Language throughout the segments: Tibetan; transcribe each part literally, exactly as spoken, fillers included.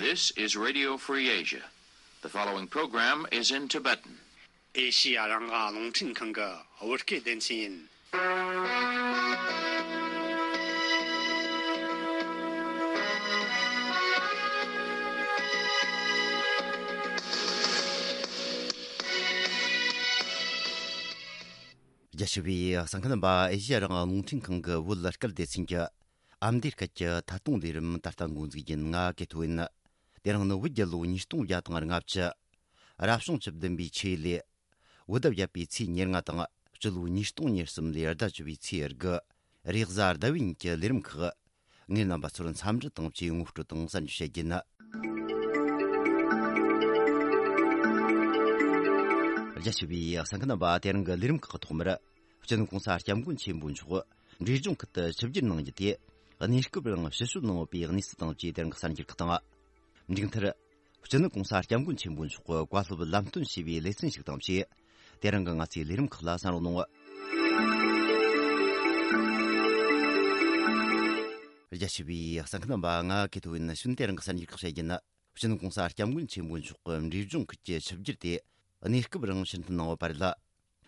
This is Radio Free Asia. The following program is in Tibetan. ཨེ་ཤི་ཡ་རང་དབང་རླུང་འཕྲིན་ཁང་གི་བོད་སྐད་སྡེ་ཚན་ཡིན། རྒྱ་ཆེ་བའི་གསན་མཁན་རྣམ་པ། ཨེ་ཤི་ཡ་རང་དབང་རླུང་འཕྲིན་ཁང་གི་བོད་སྐད་སྡེ་ཚན་གྱི་ཨ་མདོའི་སྐད་ཀྱི་ཐད་གཏོང་ལས་རིམ་ད་ལྟ་འགོ་འཛུགས་ཡིན། ང་ཀེ་ཐོ་ཡིན། དེ་རིང་ནི་བོད་རྒྱལ་ལོ་ཉིས་སྟོང་བརྒྱ་དང་ལྔ་བཅུ། རབ་བྱུང་བཅུ་བདུན་པའི་ཆུ་ཡོས་ལོའི་བོད་ཟླ་བརྒྱད་པའི་ཚེས་ཉེར་ལྔ་དང་། སྤྱི་ལོ་ཉིས་སྟོང་ཉེར་གསུམ་ལོའི་ཟླ་བཅུ་པའི་ཚེས་དགུ། རེས་གཟའ་ཟླ་བའི་ཉིན་གྱི་ལས་རིམ་ཁག་ངས་རྣམ་པ་ཚོར་འཚམས་འདྲི་དང་བཅས་ངོ་སྤྲོད་དང་གསར་འགྱུར་བཤད་རྒྱུ་ཡིན། རྒྱ་ཆེ་བའི་གསན་མཁན་རྣམ་པ། དེ་རིང་གི་ལས་རིམ་ཁག་གི་ཐོག་མར། སྤྱི་ནོར་གོང་ས་སྐྱབས་མགོན་ཆེན་པོ་མཆོག་འབྲས་ལྗོངས་ཁུལ་དུ་ཆིབས་བསྒྱུར་གནང་རྒྱུ་དེ་གནས་སྐབས་རིང་ཕྱིར་བཤོལ་གནང་ཡོད་པའི་གནས་ཚུལ་དང་བཅས། དེ་རིང་གི་གསར་འགྱུར་ཁག་དང་། མཇུག་མཐར། སྤྱི་ནོར་གོང་ས་སྐྱབས་མགོན་ཆེན་པོ་མཆོག་གི་བཀའ་སློབ་ལམ་སྟོན་ཞུས་པའི་ལེ་ཚན་ཞིག་དང་བཅས། དེ་རིང་གི་ང་ཚོའི་ལས་རིམ་ཁག་ལ་གསན་རོགས་གནང་། རྒྱ་ཆེ་བའི་གསན་མཁན་རྣམ་པ། ང་ཀེ་ཐོ་ཡིན། ཞུན། དེ་རིང་གི་གསར་འགྱུར་ཁག་བཤད་རྒྱུ་ཡིན། སྤྱི་ནོར་གོང་ས་སྐྱབས་མགོན་ཆེན་པོ་མཆོག་གི་འབྲས་ལྗོངས་ཁུལ་གྱི་ཆིབས་བསྒྱུར་དེ་གནས་སྐབས་རིང་ཕྱིར་འཐེན་གནང་ཡོད་པ་རེད།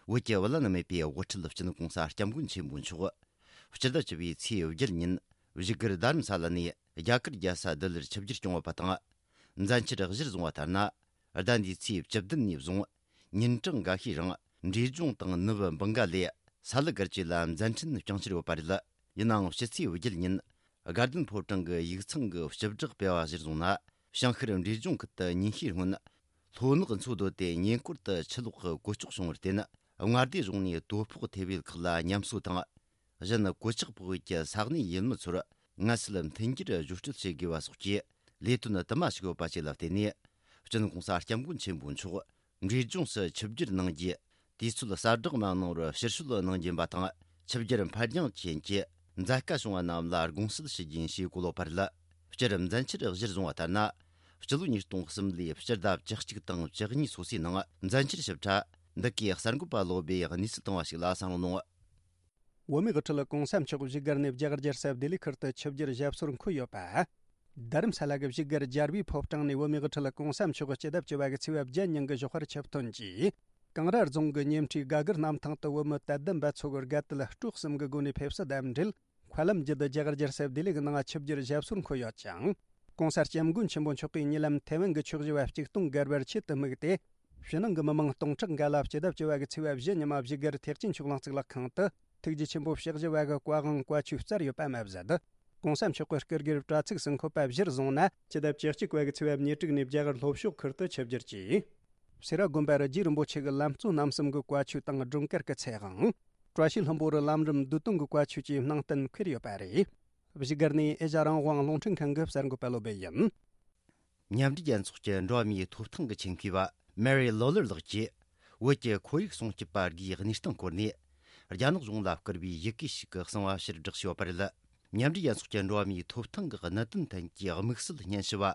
བོད་ཀྱི་བླ་ན་མེད་པའི་དབུ་ཁྲིད་སྤྱི་ནོར་གོང་ས་སྐྱབས་མགོན་ཆེན་པོ་མཆོག་སྤྱི་ཟླ་བཅུ་པའི་ཚེས་བརྒྱད་ཉིན་བཞུགས་སྒར་རྡ་རམ་ས་ལ་ནས་རྒྱ་གར་རྒྱལ་ས་ལྡི་ལིར་ཆིབས་བསྒྱུར་བསྐྱངས་ཡོད་པ་དང་། མཛད་འཆར་གཞིར་བཟུང་བ་ལྟར་ན། ཟླ་འདིའི་ཚེས་བཅུ་བདུན་ནས་བཟུང་ཉིན་གྲངས་འགའ་ཤས་རིང་འབྲས་ལྗོངས་དང་ནུབ་བྷང་ག་ལའི་ས་ལུ་སྒར་བཅས་ལ་མཛད་འཕྲིན་བསྐྱངས་འཆར་ཡོད་པ་རེད། ཡིན་ནའང་ཕྱི་ཚེས་བརྒྱད་ཉིན་དགའ་ལྡན་ཕོ་བྲང་གི་ཡིག་ཚང་གི་སྤྱི་བསྒྲགས་སྤེལ་བ་གཞིར་བཟུང་ན། བྱང་ཤར་འབྲས་ལྗོངས་ཁུལ་དུ་ཉིན་ཤས་སྔོན་ལྷོ་ནག་མཚོ་རྡོ་དེ་ཉེ་འཁོར་དུ་ཆུ་ལོག་གི་གོད་ཆག་བྱུང་བར་བརྟེན། མངའ་སྡེ་གཞུང་ནས་དོ་ཕོག་ཐེབས་ཡུལ་ཁག་ལ་ཉམས་གསོ་དང་། གཞན་གོད་ཆག་ཕོག་ཡུལ་གྱི་ས་གནས་ཡུལ་མི་ཚོར་མངའ་སྲིད་མཐུན་འགྱུར་བརྗོད་སྤྲོད་བྱེད་དགོས་པ་སོགས་ཀྱི་ལས་དོན་དུ་མ་ཞུགས་ཡོད་པ་བཅས་ལ་བརྟེན་ནས། སྤྱི་ནོར་གོང་ས་སྐྱབས་མགོན་ཆེན་པོ་མཆོག་འབྲས་ལྗོངས་སུ་ཆིབས་བསྒྱུར་གནང་རྒྱུའི་དུས་ཚོད་གསལ་བསྒྲགས་མ་གནང་བར་ཕྱིར་བཤོལ་གནང་རྒྱུ་ཡིན་པ་དང་། ཆིབས་བསྒྱུར་འཕར་འགྱངས་རྐྱེན་གྱིས་མཛད་དཀའ་བྱུང་བ་རྣམས་ལ་དགོངས་སེལ་ཞུ་རྒྱུ་ཡིན་ཞེས་གོ་ལོག་པ་རེད། སྤྱིར་མཛད་འཆར་གཞིར་བཟུང་བ་ལྟར་ན། སྤྱི་ལོ་ཉིས་སྟོང་གསུམ་ལོའི་སྤྱི་ཟླ་བཅུ་གཅིག་དང་བཅུ་གཉིས་སོ་སོའི་ནང་མཛད་འཆར་ཞིབ་ཕྲ་འདི་གའི་གསར་འགོད་པ་བློ་སྦེ་གནས་ཚུལ་བཏང་བ་ཞིག་ལ་གསན་རོགས་གནང་། བོད་མིའི་དབུ་ཁྲིད་གོང་ས་མཆོག་བཞུགས་སྒར་ནས་རྒྱ་གར་རྒྱལ་ས་ལྡི་ལི་ཁུལ་དུ་ཆིབས་བསྒྱུར་ཞབས་སོར་འཁོད་ཡོད་པ། རྡ་རམ་ས་ལ་གི་བཞུགས་སྒར་རྒྱལ་བའི་ཕོ་བྲང་ནས་བོད་མིའི་དབུ་ཁྲིད་གོང་ས་མཆོག་སྤྱི་ཟླ་བཅུ་བ་གི་ཚེས་པ་བརྒྱད་ཉིན་གྱི་ཞོགས་པར་ཆིབས་ཐོན་གྱིས། ཀེང་ར་རྫོང་གི་ཉེ་འཁྲིས་སྒ་སྒར་གནམ་ཐང་དུ་བོད་མི་དད་ལྡན་པ་ཚོ་གི་དགའ་དད་སྤྲོ་གསུམ་གྱི་སྒོ་ནས་ཕེབས་བསུ་དང་འབྲེལ། མཁའ་ལམ་བརྒྱུད་དུ་རྒྱ་གར་རྒྱལ་ས་ལྡི་ལི་གི་ནང་ཆིབས་བསྒྱུར་ཞབས་སོར་འཁོད་ཡོད་ཅིང་། གོང་ས་སྐྱབས་མགོན་ཆེན་པོ་མཆོག་གིས་ཉེ་ལམ་ཐའེ་ཝན་གྱི་ཆོས་བཞི་བ་གཅིག་སྟོང་བརྒལ་བར་ཆེད་དུ་དམིགས་ཏེ། ཕྱི་ནང་གི་མི་མང་སྟོང་ཕྲག་འགའ་ལ་སྤྱི་ཟླ་བཅུ་བ་གི་ཚེས་པ་བཞི་ཉི་མ་བཞུགས་སྒར་ཐེག་ཆེན་ཆོས་གླིང་གཙུག་ལག་ཁང་དུ་ཐུགས་རྗེ་ཆེན་པོ་ཞབས་བཞི་བ་གི་བཀའ་དབང་བཀའ་ཆོས་སྩལ་ཡོད་པ་མ་ཟད། གོང་ས་མཆོག་གི་སྐུ་སྒེར་དྲ་ཚིགས་སུ་འཁོད་པ་གཞིར་བཟུང་ན། སྤྱི་ཟླ་བཅུ་གཅིག་པ་གི་ཚེས་པ་ཉེར་དྲུག་ནས་རྒྱ་གར་ལྷོ་ཕྱོགས་ཁུལ་དུ་ཆིབས་བསྒྱུར་གྱིས། སེ་ར་དགོན་པར་རྗེ་རིན་པོ་ཆེ་གི་ལམ་གཙོ་རྣམ་གསུམ་གྱི་བཀའ་ཆོས་དང་སྒྲོལ་དཀར་གྱི་ཚེ་དབང་། བཀྲ་ཤིས་ལྷུན་པོ་རུ་ལམ་རིམ་བསྡུས་དོན་གྱི་བཀའ་ཆོས་བཅས་གནང་གཏན་འཁེལ་ཡོད་པ་རེད། བཞུགས་སྒར་ནས་ཨེ་ཤ་ཡ་རང་དབང་རླུང་འཕྲིན་ཁང་གི་གསར་འགོད་པ་བློ་སྦེ་ཡིན། མཉམ་འབྲེལ་རྒྱལ་ཚོགས་ཀྱི་འགྲོ་བ་མིའི་ཐོབ་ཐང་གི་ཆེད་མཁས་པ་མེ་རི་ལོ་ལར་ལགས་ཀྱིས། བོད་ཀྱི་ཁོར་ཡུག་སྲུང་སྐྱོབ་པ་དགུའི་གནས་སྟངས་སྐོར་ནས། རྒྱ་ནག་གཞུང་ལ་བསྐུར་བའི་ཡི་གེ་ཞིག་གི་གསང་བ་ཕྱིར་བསྒྲགས་བྱས་ཡོད་པ་རེད། མཉམ་འབྲེལ་རྒྱལ་ཚོགས་ཀྱི་འགྲོ་བ་མིའི་ཐོབ་ཐང་གི་གནད་དོན་ཐད་ཀྱི་དམིགས་བསལ་སྙན་ཞུ་བ།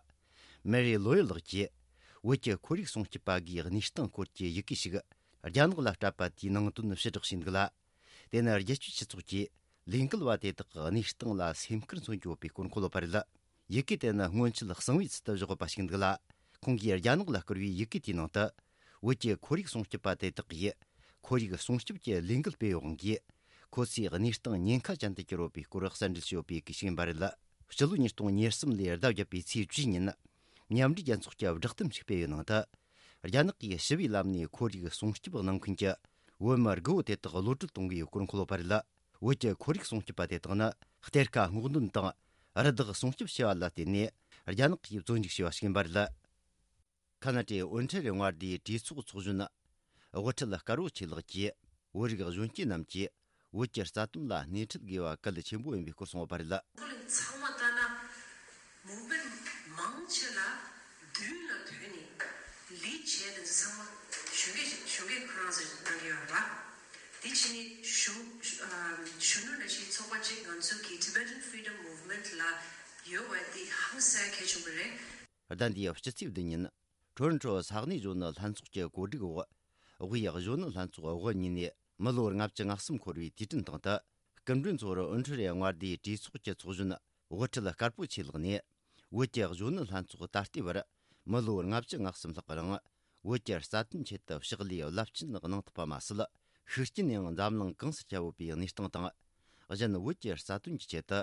མེ་རི་ལོ་ཡར་ལགས་ཀྱིས། བོད་ཀྱི་ཁོར་ཡུག་སྲུང་སྐྱོབ་པ་དགུའི་གནས་སྟངས་སྐོར་གྱི་ཡི་གེ་ཞིག་རྒྱ་ནག་ལ་སྤྲད་པ་དེའི་ནང་དོན་ཕྱིར་བསྒྲགས་བྱས་འདུག་ལ། དེ་ནི་རྒྱལ་སྤྱིའི་སྤྱི་ཚོགས་ཀྱིས་ལས་འགུལ་བ་དེ་དག་གི་གནས་སྟངས་ལ་སེམས་ཁུར་མཚོན་རྒྱུ་ཡོད་པའི་སྐོར་གོ་ལོག་པ་རེད། ཡི་གེ་དེ་ནི་སྔོན་ཆད་གསང་བའི་ཚུལ་དུ་བཞག་ཡོད་པ་ཞིག་འདུག་ལ། ཁོང་གིས་རྒྱ་ནག་ལ་བསྐུར་བའི་ཡི་གེ་དེའི་ནང་དུ། བོད་ཀྱི་ཁོར་ཡུག་སྲུང་སྐྱོབ་པ་དེ་དག་གིས། ཁོར་ཡུག་སྲུང་སྐྱོབ་ཀྱི་ལས་འགུལ་སྤེལ་ཡོད་དབང་གིས། ཁོ་ཚོའི་གནས་སྟངས་ཉེན་ཁ་ཅན་དུ་གྱུར་ཡོད་པའི་སྐོར་གསལ་འགྲེལ་བྱས་ཡོད་པའི་ཡི་གེ་ཞིག་ཡིན་པ་རེད། སྤྱི་ལོ་ཉིས་སྟོང་ཉེར་གསུམ་ལོའི་ཟླ་བརྒྱད་པའི་ཚེས་བཅུའི་ཉིན། མཉམ་འབྲེལ་རྒྱལ་ཚོགས་ཀྱི་བསྒྲགས་གཏམ་ཞིག་སྤེལ་བའི་ནང་དུ། རྒྱ་ནག་གིས་ཞི་བའི་ལམ་ནས་ཁོར་ཡུག་སྲུང་སྐྱོབ་གནང་མཁན་གྱི་བོད་མི་དགུ་བོ་དེ་དག་གློད་གྲོལ་གཏོང་དགོས་སྐོར་འཁོད་ཡོད་པ་རེད། བོད་ཀྱི་ཁོར་ཡུག་སྲུང་སྐྱོབ་པ་དེ་དག་ནི་གཏེར་ཁ་སྔོག་འདོན་དང་རི་དྭགས་སྲུང་སྐྱོབ་བྱས་པ་ལ་བརྟེན་ནས་རྒྱ་ནག་གིས་བཙོན་འཇུག་བྱས་པ་ཞིག་ཡིན་པ་རེད། ཁ་ན་ཏའི་ཨོན་ཁྲེ་རི་མངའ་སྡེའི་གྲོས་ཚོགས་ཚོགས་གཞོན། དབུ་ཁྲིད་དཀར་པོ་ཆེ་ལགས་ཀྱིས། བོད་རིགས་གཞོན་སྐྱེས་རྣམས་ཀྱིས་བོད་ཀྱི་རྩ་དོན་ལ་སྣེ་ཁྲིད་དགོས་པ་གལ་ཆེན་པོ་ཡིན་པའི་སྐོར་གསུངས་ཡོད་པ་རེད། ཁོ་ལ་ཚང་མ་ལྟ་ན་མུ་བེན་མང་ཆེ་ལ་མདུན་ལ་བོད་ནས་ལས་བྱས་དེ་ཚོ་ཚང་མ་གཞོན་སྐྱེས་གཞོན་སྐྱེས་ཁོ་རང་ཚོས་གནང་གི་ཡོད་རེད་པ། དེ་བྱས་ནས་གཞོན་གཞོན་ནུ་འདྲ་ཞིག་ཚོགས་པ་གཅིག་ང་ཚོ་གི་Tibetan Freedom Movement ལ་ཡོད་པ་དེ་ཧང་སང་གལ་ཆེན་པོ་རེད། ཟླ་འདིའི་ཕྱི་ཚེས་བདུན་ཉིན། ཁྲོན་ཁྲོ་ས་གནས་གཞོན་ནུ་ལྷན་ཚོགས་ཀྱི་གོ་སྒྲིག་འོག་དབུས་གཞོན་ནུ་ལྷན་ཚོགས་དབུ་བརྙེས་ནས་མི་ལོ་ལྔ་བཅུ་ང་གསུམ་འཁོར་བའི་དུས་དྲན་སྟེང་དུ། སྐུ་མགྲོན་ཚོར་ཨོན་ཁྲི་རེ་མངའ་སྡེའི་གྲོས་ཚོགས་ཀྱི་ཚོགས་གཞོན་དབུ་ཁྲིད་དཀར་པོ་ཆེ་ལགས་ནས། ། བོད་ཀྱི་གཞོན་ནུ་ལྷན་ཚོགས་ད་ལྟའི་བར་མི་ལོ་ལྔ་བཅུ་ང་གསུམ་ལྷག་གི་རིང་བོད་ཀྱི་རྩ་དོན་ཆེད་དུ་ཕྱག་ལས་རླབས་ཆེན་གནང་ཐུབ་པ་མ་ཟད། ཤུགས་རྐྱེན་ཡང་འཛམ་གླིང་གང་སར་ཁྱབ་ཡོད་པའི་གནས་སྟངས་དང་། གཞན་བོད་ཀྱི་རྩ་དོན་གྱི་ཆེད་དུ་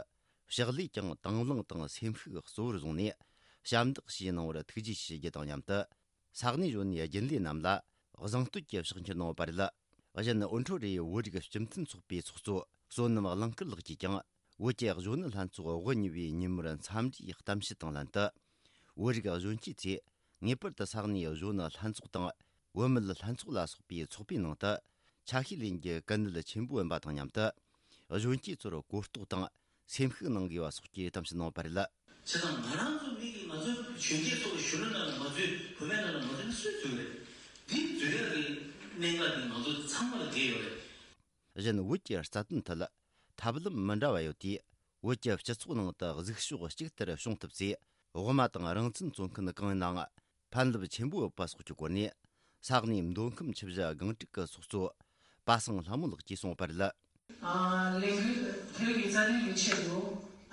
ཕྱག་ལས་ཀྱང་དང་བླངས་དང་སེམས་ཤུགས་གཙོ་བོར་བཟུང་ནས་ཞབས་འདེགས་ཞུས་གནང་བར་ཐུགས་རྗེ་ཆེ་ཞུ་རྒྱུ་དང་མཉམ་དུ། ས་གནས་གཞོན་ནུའི་རྒྱུན་ལས་རྣམས་ལ་གཟེངས་བསྟོད་ཀྱི་ཕྱག་འཁྱེར་གནང་བ་རེད། གཞན་ཨོན་ཁྲོ་རེའི་བོད་རིགས་སྤྱི་མཐུན་ཚོགས་པའི་ཚོགས་གཙོ་བསོད་ནམས་གླིང་དཀར་ལགས་ཀྱིས་ཀྱང་བོད་ཀྱི་གཞོན་ནུ་ལྷན་ཚོགས་དབུ་བརྙེས་པའི་ཉིན་མོར་འཚམས་འདྲིའི་གཏམ་བཤད་དང་ལྷན་དུ། བོད་རིགས་གཞོན་སྐྱེས་ཚོས་ངེས་པར་དུ་ས་གནས་གཞོན་ནུ་ལྷན་ཚོགས་དང་བུད་མེད་ལྷན་ཚོགས་ལ་སོགས་པའི་ཚོགས་པའི་ནང་དུ་ཆ་ཤས་ལེན་རྒྱུ་གལ་གནད་ཆེན་པོ་ཡིན་པ་དང་མཉམ་དུ། གཞོན་སྐྱེས་ཚོར་གོ་རྟོགས་དང་སེམས་ཤུགས་གནང་དགོས་པ་སོགས་ཀྱི་གཏམ་བཤད་གནང་བ་རེད། བྱས་ཙང་ང་རང་ཚོ་མི་གིས་ང་ཚོའི་གཞོན་སྐྱེས་ཚོ་གཞོན་ནུ་ནང་ལ་མ་འཛུལ། བུད་མེད་ནང་ལ་མ་འཛུལ་ན་སུས་འཛུལ་རེད། འདི་འཛུལ་ཡག་གི་གནད་འགག་འདི་ང་ཚོ་ཚང་མ་ལ་འགལ་ཡོད་རེད། གཞན་བོད་ཀྱི་རྩ་དོན་ཐད་ཐབས་ལམ་མི་འདྲ་བ་ཡོད་དུས། བོད་ཀྱི་སྤྱི་ཚོགས་ནང་དུ་གཟིགས་ཕྱོགས་གཅིག་ལྟར་བྱུང་ཐུབ་ཚེ། དབུ་མ་དང་རང་བཙན་རྩོད་མཁན་གང་ཡིན་ནའང་ཕན་རླབས་ཆེན་པོ་ཡོད་པ་སོགས་ཀྱི་སྐོར་ནས། ས་གནས་མདོ་ཁམས་ཆུ་བཞི་སྒང་དྲུག་གི་ཚོགས་གཙོ་པ་སངས་ལྷ་མོ་ལགས་ཀྱིས་གསུངས་པ་རེད། ཨ། ལས་འགུལ་བོད་ཀྱི་རྩ་དོན་གྱི་ཆེད་དུ།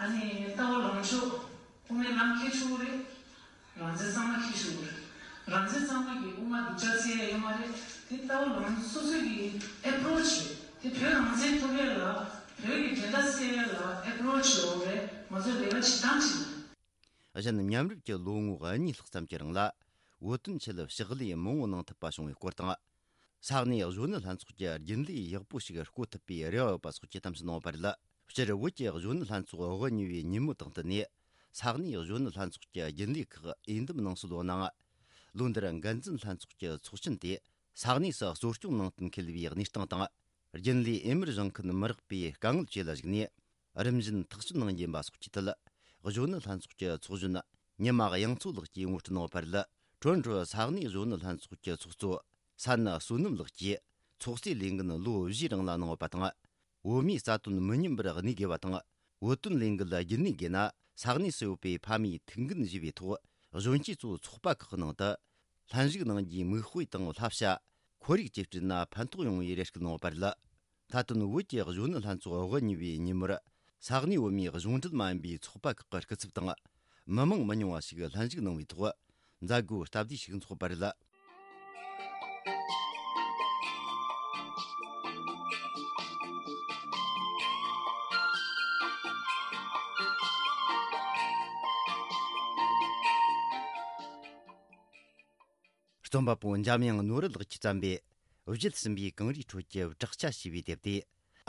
ཨ་ནི་ལྟ་བ་ལངས་ཕྱོགས་དབུ་མའི་ལམ་འཁྱེར་ཆོག་གི་རེད། རང་བཙན་གཙང་མ་འཁྱེར་ཆོག་གི་རེད། རང་བཙན་གཙང་མ་གི་དབུ་མ་སྡུག་ཅག་བསད་ཡ་ཡོད་མ་རེད། དེ་ལྟ་བ་ལངས་སོ་སོ་གི་ཨེ་པོ་རོ་ཆི་རེད། དེ་བོད་རང་བཙན་ཐོབ་ཡ་ལ་བོད་ཀྱི་འགྲན་ཟླ་སེལ་ཡ་ལ་ཨེ་པོ་རོ་ཆི་ཡོད་རེད། ང་ཚོ་ལས་ཀ་བྱེད་སྟངས་ཅིག་ལ། གཞན་མཉམ་རུབ་ཀྱི་ལོ་ངོ་གཉིས་ལྷག་ཙམ་གྱི་རིང་ལ་བོད་དོན་ཆེད་ཕྱག་ལས་མང་བོ་གནང་ཐུབ་པ་བྱུང་བའི་སྐོར་དང་། ས་གནས་གཞོན་ནུ་ལྷན་ཚོགས་ཀྱི་རྒྱུན་ལས་ཡག་པོ་ཞིག་བསྐོ་ཐུབ་པའི་རེ་བ་ཡོད་པ་སོགས་ཀྱི་གཏམ་བཤད་གནང་བ་རེད། སྤྱིར་བོད་ཀྱི་གཞོན་ནུ་ལྷན་ཚོགས་དབུ་བརྙེས་པའི་ཉིན་མོ་དང་བསྟུན་ནས། ས་གནས་གཞོན་ནུ་ལྷན་ཚོགས་ཀྱི་རྒྱུན་ལས་ཁག་འོས་འདེམས་གནང་སྲོལ་ཡོད་ནའང་། ལོ་འདིར་འགན་འཛིན་ལྷན་ཚོགས་ཀྱི་ཚོགས་ཆེན་དེ་ས་གནས་སུ་གཙོ་སྐྱོང་ནང་བསྟན་འཁེལ་བའི་གནས་སྟངས་དང་། རྒྱུན་ལས་འོས་མིར་བཞེངས་མཁན་མི་རག་པའི་དཀའ་ངལ་བཅས་ལ་གཞིགས་ནས། རིམ་བཞིན་ཐག་གཅོད་གནང་རྒྱུ་ཡིན་པ་སོགས་ཀྱི་ཐད། གཞོན་ནུ་ལྷན་ཚོགས་ཀྱི་ཚོགས་གཞོན་ཉི་མ་དབྱངས་མཚོ་ལགས་ཀྱིས་ངོ་སྤྲོད་གནང་བ་རེད། ཁྲོན་ཁྲོ་ས་གནས་གཞོན་ནུ་ལྷན་ཚོགས་ཀྱི་ཚོགས་གཙོ་ས་ན་བསོད་ནམས་ལགས་ཀྱིས་ཚོགས་གཙོའི་ལས་འགན་ལོ་བཞིའི་རིང་ལ་གནང་བ་དང་། བོད་མིའི་རྩ་དོན་མི་ཉམས་པར་གནས་དགོས་པ་དང་། བོད་དོན་ལས་འགུལ་རྒྱུན་གནས་དགོས་ན། ས་གནས་སུ་ཡོད་པའི་ཕ་མའི་ཐུགས་འགན་བཞེས་པའི་ཐོག་གཞོན་སྐྱེས་ཚོ་ཚོགས་པ་ཁག་ནང་དུ་ལྷན་ཞུགས་གནང་རྒྱུའི་མིག་དཔེ་དང་བསླབ་བྱ། ཁོར་ཡུག་བཅས་བསྐྲུན་ན་ཕན་ཐོགས་ཡོང་བའི་རེ་སྐུལ་གནང་བ་རེད། མཐའ་དོན་བོད་ཀྱི་གཞོན་ནུ་ལྷན་ཚོགས་དབུ་བརྙེས་པའི་ཉིན་མོར། ས་གནས་བོད་མིའི་གཞུང་འབྲེལ་མ་ཡིན་པའི་ཚོགས་པ་ཁག་གི་སྐུ་ཚབ་དང་། མི་མང་མི་ཉུང་བ་ཞིག་ལྷན་ཞུགས་གནང་བའི་ཐོག་མཛད་སྒོའི་སྟབས་བདེ་ཞིག་འཚོགས་པ་རེད། རྩོམ་པ་པོ་འཇམ་དབྱངས་ནོར་བུ་ལགས་ཀྱིས་བརྩམས་པའི་བརྗིད་ཟིན་པའི་གངས་རིའི་ཁྲོད་ཀྱི་བྲག་ཆ་ཞེས་པའི་དེབ་དེ།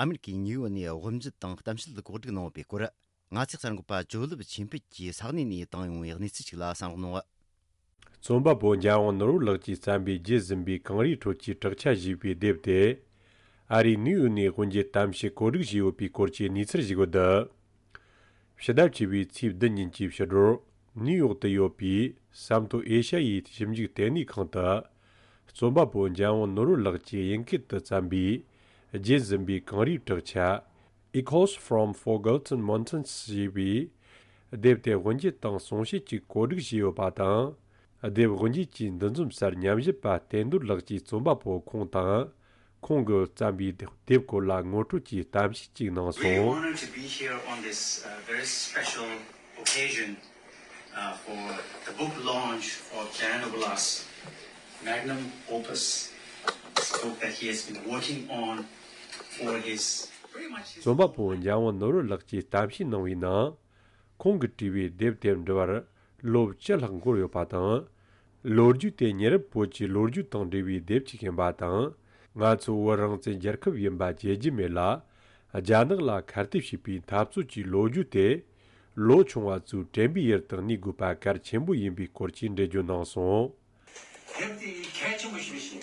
ཨ་མེ་རི་ཁའི་ནིའུ་ཡོག་ནས་དབུ་འབྱེད་དང་གཏམ་བཤད་གོ་སྒྲིག་གནང་བའི་སྐོར། ང་ཚོའི་གསར་འགོད་པ་ཇོ་ལེབ་ཆོས་འཕེལ་གྱིས་ས་གནས་ནས་བཏང་ཡོང་བའི་གནས་ཚུལ་ཞིག་ལ་གསན་རོགས་གནང་། རྩོམ་པ་པོ་འཇམ་དབྱངས་ནོར་བུ་ལགས་ཀྱིས་བརྩམས་པའི་བརྗིད་ཟིན་པའི་གངས་རིའི་ཁྲོད་ཀྱི་བྲག་ཆ་ཞེས་པའི་དེབ་དེ། ཨ་རིའི་ནིའུ་ཡོག་ནས་དབུ་འབྱེད་གཏམ་བཤད་གོ་སྒྲིག་བྱས་ཡོད་པའི་སྐོར་གྱི་གནས་ཚུལ་ཞིག་ཡོད། ཕྱི་ཟླ་བཅུ་པའི་ཚེས་བདུན་ཉིན་གྱི་ཕྱི་དྲོར་ནིའུ་ཡོག་ཏུ་ཡོད་པའི་ས་མཐོ་ཨེ་ཤ་ཡའི་ཞིབ་འཇུག་ལྟེ་གནས་ཁང་དུ། རྩོམ་པ་པོ་འཇམ་དབྱངས་ནོར་བུ་ལགས་ཀྱིས་དབྱིན་སྐད་དུ་བརྩམས་པའི་བརྗིད་ཟིན་པའི་གངས་རིའི་བྲག་ཆ། Echoes from Forgotten Mountains ཞེས་པའི་དེབ་དེ་དབུ་འབྱེད་དང་གསུང་བཤད་ཀྱི་གོ་སྒྲིག་བྱས་ཡོད་པ་དང་། དེབ་དབུ་འབྱེད་ཀྱི་འདུ་འཛོམས་སར་ཉམས་ཞིབ་པ་བསྟན་རྡོར་ལགས་ཀྱིས་རྩོམ་པ་པོ་ཁོང་དང་། ཁོང་གིས་བརྩམས་པའི་དེབ་སྐོར་ལ་ངོ་སྤྲོད་ཀྱི་གཏམ་བཤད་ཅིག་གནང་སོང་། Really honored to be here on this, uh, very special occasion, uh, for the book launch of Jayendra Bala's magnum opus, this book that he has been working on for his, pretty much his རྩོམ་པ་པོ་འཇམ་དབྱངས་ནོར་བུ་ལགས་ཀྱིས་གཏམ་བཤད་གནང་བའི་ནང་། ཁོང་གིས་བྲིས་པའི་དེབ་དེ་འབྲི་བར་ལོ་བཅུ་ལྷག་འགོར་ཡོད་པ་དང་། ལོ་རྒྱུས་དེ་མྱི་རབས་བོད་ཀྱི་ལོ་རྒྱུས་དང་འབྲེལ་བའི་དེབ་ཅིག་ཡིན་པ་དང་། ང་ཚོ་བོད་རང་བཙན་རྒྱལ་ཁབ་ཡིན་པ་བརྗེད་རྒྱུ་མེད་ལ། རྒྱ་ནག་ལ་ཁ་གཏད་བྱས་པའི་འཐབ་རྩོད་ཀྱི་ལོ་རྒྱུས་དེ། ལོ་ཆུང་བ་ཚོས་དྲན་པའི་ཡུལ་དུ་གནས་དགོས་པ་གལ་ཆེན་པོ་ཡིན་པའི་སྐོར་གྱི་འགྲེལ་བརྗོད་གནང་སོང་། དེབ་དེ་གལ་ཆེན་པོ་ཞིག་རེད་ཤག་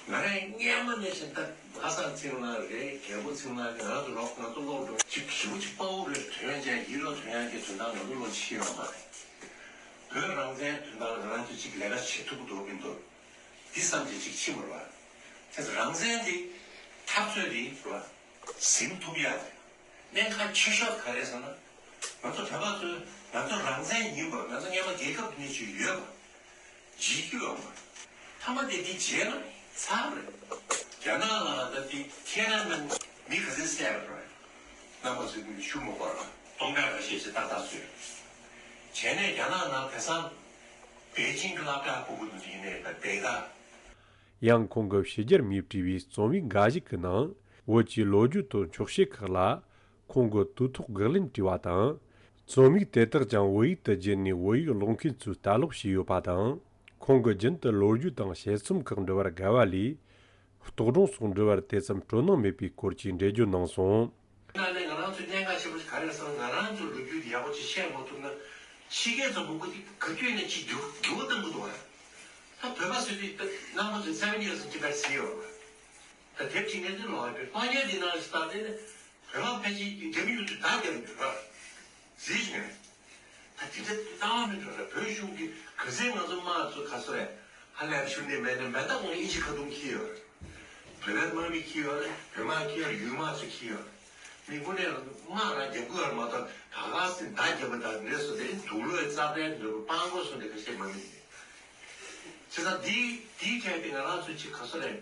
ང་རང་སྔོན་མ་ནས་བཞིན་ད་ལྷ་བཟང་ཚེ་རིང་ལགས་རེད། རྒྱལ་པོ་ཚེ་རིང་ལགས་རེད། ང་ཚོ་ལོག་ང་ཚོ་ལོག་འགྲོ་ཅིག་ཞེ་པོ་ཅིག་དཔའ་བོ་རེད། དོན་ཅན་ཡིད་ལ་དོན་ཡག་གི་དོན་དག་ང་ཚོ་ལོག་ཤེས་ཡོད་མ་རེད། བོད་རང་བཙན་དོན་དག་ང་རང་ཚོ་ཅིག་ལས་ཀ་བྱེད་ཐུབ་ཀྱི་འདུག་གི་འདུག་འདི་བསམ་གྱི་ཅིག་ཕྱིན་པ་རེད་བ། དེ་ཚོ་རང་བཙན་འདི་འཐབ་རྩོད་འདི་རེད་བ། ཟིན་ཐུབ་ཡ་དེ་གནད་འགག་ཆེ་ཤོས་ག་རེ་ཟེར་ན། ང་ཚོ་བོད་པ་ཚོས་ང་ཚོ་རང་བཙན་ཡིན་པ། ང་ཚོ་སྔོན་མ་རྒྱལ་ཁབ་འདི་ནས་ཅིག་ཡོད་པ། བརྗེད་རྒྱུ་ཡོད་མ་རེད། མཐའ་མ་དེ་འདི་བརྗེད་ན་ཚར་རེད། རྒྱ་ནག་ལ་ད་འདི་ཐེན་ཨན་མེན་མི་ག་ཚོད་བསད་པ་རེད། རྣམ་པ་ཚོས་འདི་ཞུ་མ་དགོས་ར། སྟོང་ཕྲག་ཁ་ཤས་ཤིག་ཏག་ཏག་བཟོས། བྱས་ནས་རྒྱ་ནག་ནང་དེང་སང་པེ་ཅིང་གི་སློབ་གྲྭ་ཕྲུ་གུ་དེ་ཡིན་ནའི་ད་དེ་ད། ཡང་ཁོང་གིས་ཕྱི་རྒྱལ་མིས་བྲིས་པའི་རྩོམ་ཡིག་འགའ་ཞིག་གི་ནང་བོད་ཀྱི་ལོ་རྒྱུས་དང་འཁྱོག་བཤད་ཁག་ལ་ཁོང་གིས་དུས་ཐོག་དགག་ལན་བྲིས་པ་དང་། རྩོམ་ཡིག་དེ་དག་ཀྱང་བོད་ཡིག་ཏུ་བསྒྱུར་ནས་བོད་ཡིག་ཀློག་མཁན་ཚོས་ལྟ་ཀློག་བྱས་ཡོད་པ་དང་། ཁོང་གིས་རྒྱུན་དུ་ལོ་རྒྱུས་དང་དཔྱད་རྩོམ་ཁག་འབྲི་བར་དགའ་བ་ལས། རྟོག་སྒྲུང་སོགས་འབྲི་བར་དེ་ཙམ་སྤྲོ་སྣང་མེད་པའི་སྐོར་གྱི་འགྲེལ་བརྗོད་གནང་སོང་། ད་ནི་ང་རང་ཚོའི་གནད་འགག་ཆེན་པོ་ཞིག་ག་རེ་རེད་ཟེར་ན། ང་རང་ཚོའི་ལོ་རྒྱུས་དེ་ཡག་པོ་ཅིག་ཤེས་མ་ཐུབ་ན། ཕྱི་རྒྱལ་ཚོ་མང་པོ་དེ་ག་དུས་ནས་ཅིག་འགྱུར་འགྱུར་བ་གཏོང་གི་འདུག་བ། ད་བོད་པ་ཚོས་དེ་ད་རྣམ་པ་ཚོས་seven years in Tibet ཟེར་ཡོད་རེད། ད་དེབ་ཅིག་ངས་དེ་ཀློག་ཡོད་པས། ཀློག་མཁན་དེ་ནང་ཞིག་ད་དེ་ནི་བོད་པ་ཕལ་ཆེར་རྒྱ་མི་ཡོད་དུས་ད་རྒྱ་མི་འདུག་ར། གཟིགས་ཤིག་ངས། ད་དེ་འདྲ་ལྟ་བ་མི་འགྲོ་ར། བོད་གཞུང་གིས་ག་ཚད་ང་ཚོ་དམག་ཚོ་ག་ཚོད་རེད། ཧ་ལས་པ་ཞུ་ནས་མེད་ནས་མེད། ད་ཁོང་ཨིན་ཇི་ཁ་ཐུམ་འཁྱེར་ཡོད་རེད། བོད་པའི་དམག་མི་འཁྱེར་ཡོད་རེད། བོད་དམག་འཁྱེར་ཡོད་རེད། ཡུལ་དམག་ཚོ་འཁྱེར་ཡོད་རེད། མི་དངོས་གནས་དམག་རང་རྒྱབ་དགོས་ཡོད་རེད་མ་གཏོགས། ད་ག་སེ་མདའ་རྒྱབ་པ་དང་འདྲེ་སོ་དེ་དུག་ལོག་རྩ་བྲལ་འདྲ་པོ་སྤང་གོ་སོ་འདི་ག་ཤེས་མ་མི་འདི། བྱས་ཙང་འདི་འདིའི་ཐད་དེ་ང་རང་ཚོ་ཅིག་ག་ཚོད་རེད།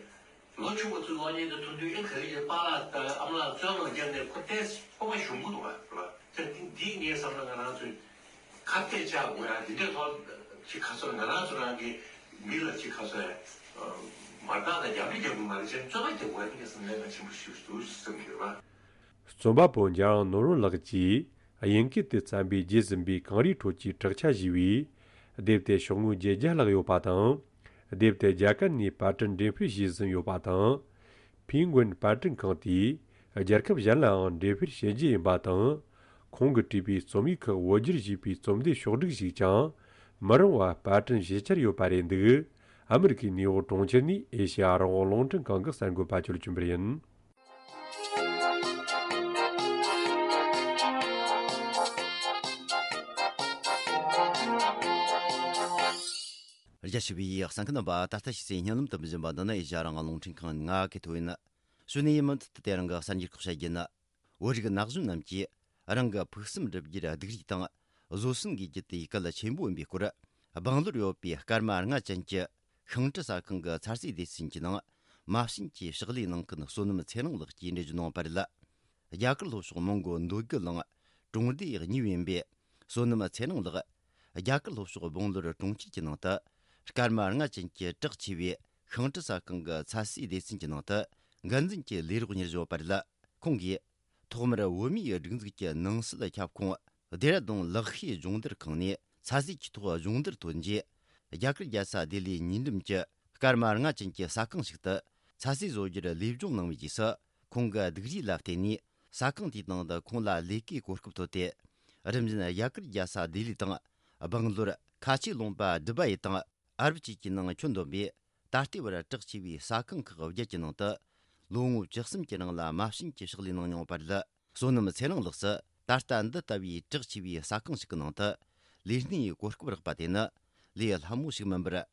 ལོ་ཆུང་བ་ཚོའི་གློག་བརྙན་དེ་མཐོང་དུས་ཨེ་ག་རེ་ཡིན། པཱ་ལགས་དང་ཨ་མ་ལགས་བཙོན་ལ་བརྒྱབ་ནས་ཁོ་ཏོག་ཙམ་སྤོབས་པ་ཞུམ་གི་འདུག་བ། དེ་འདི་ངས་བསམ་ན་ང་རང་ཚོས་ཁ་གཏད་བཅག་དགོས་ཡ། འདི་འདྲའི་ཐོག་ཅིག་ག་ཚོད་ང་རང་ཚོ་རང་གི་མི་ལ་ཅིག་ག་ཚོད་མ་རྟགས་དང་རྒྱབ་རི་རྒྱབ་དགོས་མ་རེད། ཅེས་བཙོན་པ་རྒྱབ་དགོས་ཡ། འདི་ངས་བསམ་ན་གལ་ཆེན་པོ་ཞིག་འདུག་བསམ་གྱི་ཡོད་པ། རྩོམ་པ་པོ་འཇམ་དབྱངས་ནོར་བུ་ལགས་ཀྱིས་དབྱིན་སྐད་དུ་བརྩམས་པའི་རྒྱས་ཟིན་པའི་གངས་རིའི་ཁྲོད་ཀྱི་བྲག་ཆ་ཞེས་པའི་དེབ་དེ་ཤོག་ངོས་བརྒྱད་བརྒྱ་ལྷག་ཡོད་པ་དང་། དེབ་དེ་རྒྱ་གར་ནས་པར་སྐྲུན་འགྲེམས་སྤེལ་བྱས་ཟིན་ཡོད་པ་དང་། ཕིན་གོན་པར་སྐྲུན་ཁང་དེས་རྒྱལ་ཁབ་གཞན་ལའང་འགྲེམས་སྤེལ་བྱེད་རྒྱུ་ཡིན་པ་དང་། ཁོང་གིས་བྲིས་པའི་རྩོམ་ཡིག་ཁག་བོད་བསྒྱུར་བྱས་པའི་རྩོམ་སྡེ་ཕྱོགས་བསྒྲིགས་ཤིག་ཀྱང་མི་རིང་བར་པར་སྐྲུན་བྱེད་འཆར་ཡོད་པ་རེད་འདུག་ཨ་མི་རི་ཀའི་ནེའུ་ཡོག་གྲོང་ཁྱེར་ནས་ཨེ་ཤེ་ཡ་རང་དབང་རླུང་འཕྲིན་ཁང་གི་གསར་འགོད་པ་ཆོས་ལ་ཆོས་འཕེལ་ཡིན། རྒྱ་ཆེ་བའི་གསན་མཁན་རྣམ་པ། ད་ལྟ་ཕྱི་ཚེས་བརྙན་ལམ་དུ་འཛིན་པ་འདི་ནི་ཨེ་ཤ་ཡ་རང་དབང་རླུང་འཕྲིན་ཁང་ང་གི་ཐོ་ཡིན། གཞུག་ནས་ཡིན་མུ་མཐུད་དུ་དེ་རིང་གི་གསར་འགྱུར་ཁག་བཤད་རྒྱུ་ཡིན། བོད་རིགས་ན་གཞོན་རྣམས་ཀྱིས་རང་གི་ཕུགས་བསམ་བསྒྲུབ་རྒྱུར་སྡུག་རུས་དང་བཟོད་བསྲན་དགོས་རྒྱུ་དེ་གལ་ཆེན་པོ་ཡིན་པའི་སྐོར། སྦང་ལོར་ཡོད་པའི་སྐར་མ་ལྔ་ཅན་གྱི་ཤིང་འབྲུ་ཟ་ཁང་གི་ཚ་ཟེར་སྡེ་ཚན་གྱི་ནང་མ་བྱན་གྱི་ཕྱག་ལས་གནང་མཁན་བསོད་ནམས་ཚེ་རིང་ལགས་ཀྱིས་འགྲེལ་བརྗོད་གནང་བ་རེད། རྒྱ་གར་ལྷོ་ཕྱོགས་མོན་གྷོ་འདོད་རྒུ་གླིང་གྲོང་སྡེ་གཉིས་པའི་ཡིན་པའི་བསོད་ནམས་ཚེ་རིང་ལགས། རྒྱ་གར་ལྷོ་ཕྱོགས་སྦང་ལོར་གྲོང་ཁྱེར་གྱི་ནང་དུ་སྐར་མ་ལྔ་ཅན་གྱི་གྲགས་ཆེ་བའི་ཤིང་འབྲུ་ཟ་ཁང་གི་ཚ་ཟེར་སྡེ་ཚན་གྱི་ནང་དུ་འགན་འཛིན་གྱི་ལས་རོགས་གཉེར་བཞིན་ཡོད་པ་རེད། ཁོང་གིས་ཐོག་མར་བོད་མིའི་སྒྲིག་འཛུགས་ཀྱི་ནང་སྲིད་ཁྱབ་ཁོངས་ལྡེ་ར་ལྡུན་ལག་ཤེས་སྦྱོང་བརྡར་ཁང་ནས་ཚ་ཟེར་གྱི་ཐོག་སྦྱོང་བརྡར་ཐོན་རྗེས། རྒྱ་གར་རྒྱལ་ས་ལྡི་ལིའི་ཉེ་འགྲམ་གྱི་སྐར་མ་ལྔ་ཅན་གྱི་ཟ་ཁང་ཞིག་ཏུ་ཚ་ཟེར་བཟོ་རྒྱུར་ལས་སྦྱོང་གནང་བའི་རྗེས་སུ། ཁོང་གི་སྡུག་རུས་ལ་བརྟེན་ནས་ཟ་ཁང་དེའི་ནང་དུ་ཁོང་ལ་ལས་ཀའི་གོ་སྐབས་ཐོབ་སྟེ། རིམ་བཞིན་རྒྱ་གར་རྒྱལ་ས་ལྡི་ལི་དང་། སྦང་ལོར་ཁ་ཆེ་ལུང་པ་ཌུ་བའི་དང་ཨ་རབ་བཅས་ཀྱི་ནང་ཁྱོན་བསྡོམས་པའི་ད་ལྟའི་བར་གྲགས་ཆེ་བའི་ཟ་ཁང་ཁག་བརྒྱད་ཀྱི་ནང་དུ་ལོ་ངོ་བཅུ་གསུམ་གྱི་རིང་ལ་མ་བྱན་གྱི་ཕྱག་ལས་གནང་མྱོང་བ་རེད། བསོད་ནམས་ཚེ་རིང་ལགས་སུ་ད་ལྟ་འདི་ལྟ་བུའི་གྲགས་ཆེ་བའི་ཟ་ཁང་ཞིག་གི་ནང་དུ་ལས་སྣེའི་གོ་སྐབས་རག་པ་དེ་ནི་ལས་སླ་མོ་ཞིག་མིན་པར།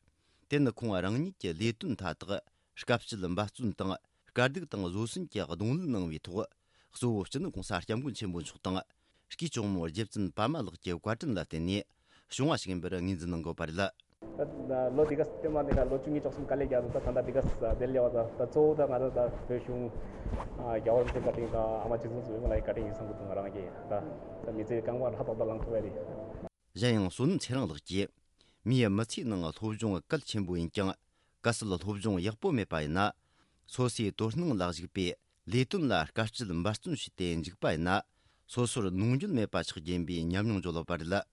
དེ་ནི་ཁོང་རང་ཉིད་ཀྱི་ལས་དོན་མཐའ་དག་དཀའ་སྤྱད་འབད་བརྩོན་དང་དཀའ་སྡུག་དང་བཟོད་བསྲན་གྱིས་གདོང་ལེན་གནང་བའི་ཐོག་གཙོ་བོ་སྤྱི་ནོར་༸གོང་ས་༸སྐྱབས་མགོན་ཆེན་པོ་མཆོག་དང་། སྐུའི་གཅུང་མོ་རྗེ་བཙུན་པདྨ་ལགས་ཀྱི་བཀའ་དྲིན་ལ་བརྟེན་ནས་བྱུང་བ་ཞིག་ཡིན་པར་ངོས་འཛིན་གནང་དགོས་པ་རེད། ད་ལོ་འདི་ག་སྟོད་མ་འདི་ག་ལོ་བཅུ་གཉིས་བཅུ་གསུམ་དཀའ་ལས་རྒྱག་འདུག་ད་ད་ལྟ་འདི་ག་བདེ་ལེགས་པ། ད་ད་གཙོ་བོ་ད་ང་ད་ད་བོད་གཞུང་རྒྱལ་བ་རིན་པོ་ཆེའི་བཀའ་དྲིན་དང་ཨ་མ་རྗེ་བཙུན་བཟང་པོ་ལགས་ཀྱི་བཀའ་དྲིན་ཡིན་བསམ་གྱི་འདུག་ང་རང་གིས་ད་ད་མི་ཚེའི་རྐང་པ་ཧྲ་ཏག་ཏག་ལངས་ཐུབ་པ་རེད། གཞན་ཡང་བསོད་ནམས་ཚེ་རིང་ལགས་ཀྱིས་མིའི་མི་ཚེའི་ནང་སློབ་སྦྱོང་གལ་ཆེན་པོ་ཡིན་ཀྱང་། གལ་སྲིད་སློབ་སྦྱོང་ཡག་པོ་མེད་པ་ཡིན་ན། སོ་སོའི་དོ་སྣང་ལ་གཞིགས་པའི་ལས་དོན་ལ་དཀའ་སྤྱད་འབད་བརྩོན་བྱས་ཏེ་འཇུག་པ་ཡིན་ན། སོ་སོར་ནོར་འཁྲུལ་མེད་པ་ཆགས་རྒྱུ་ཡིན་པའི་ཉམས་མྱོང་བརྗོད་ཡོད་པ་རེད།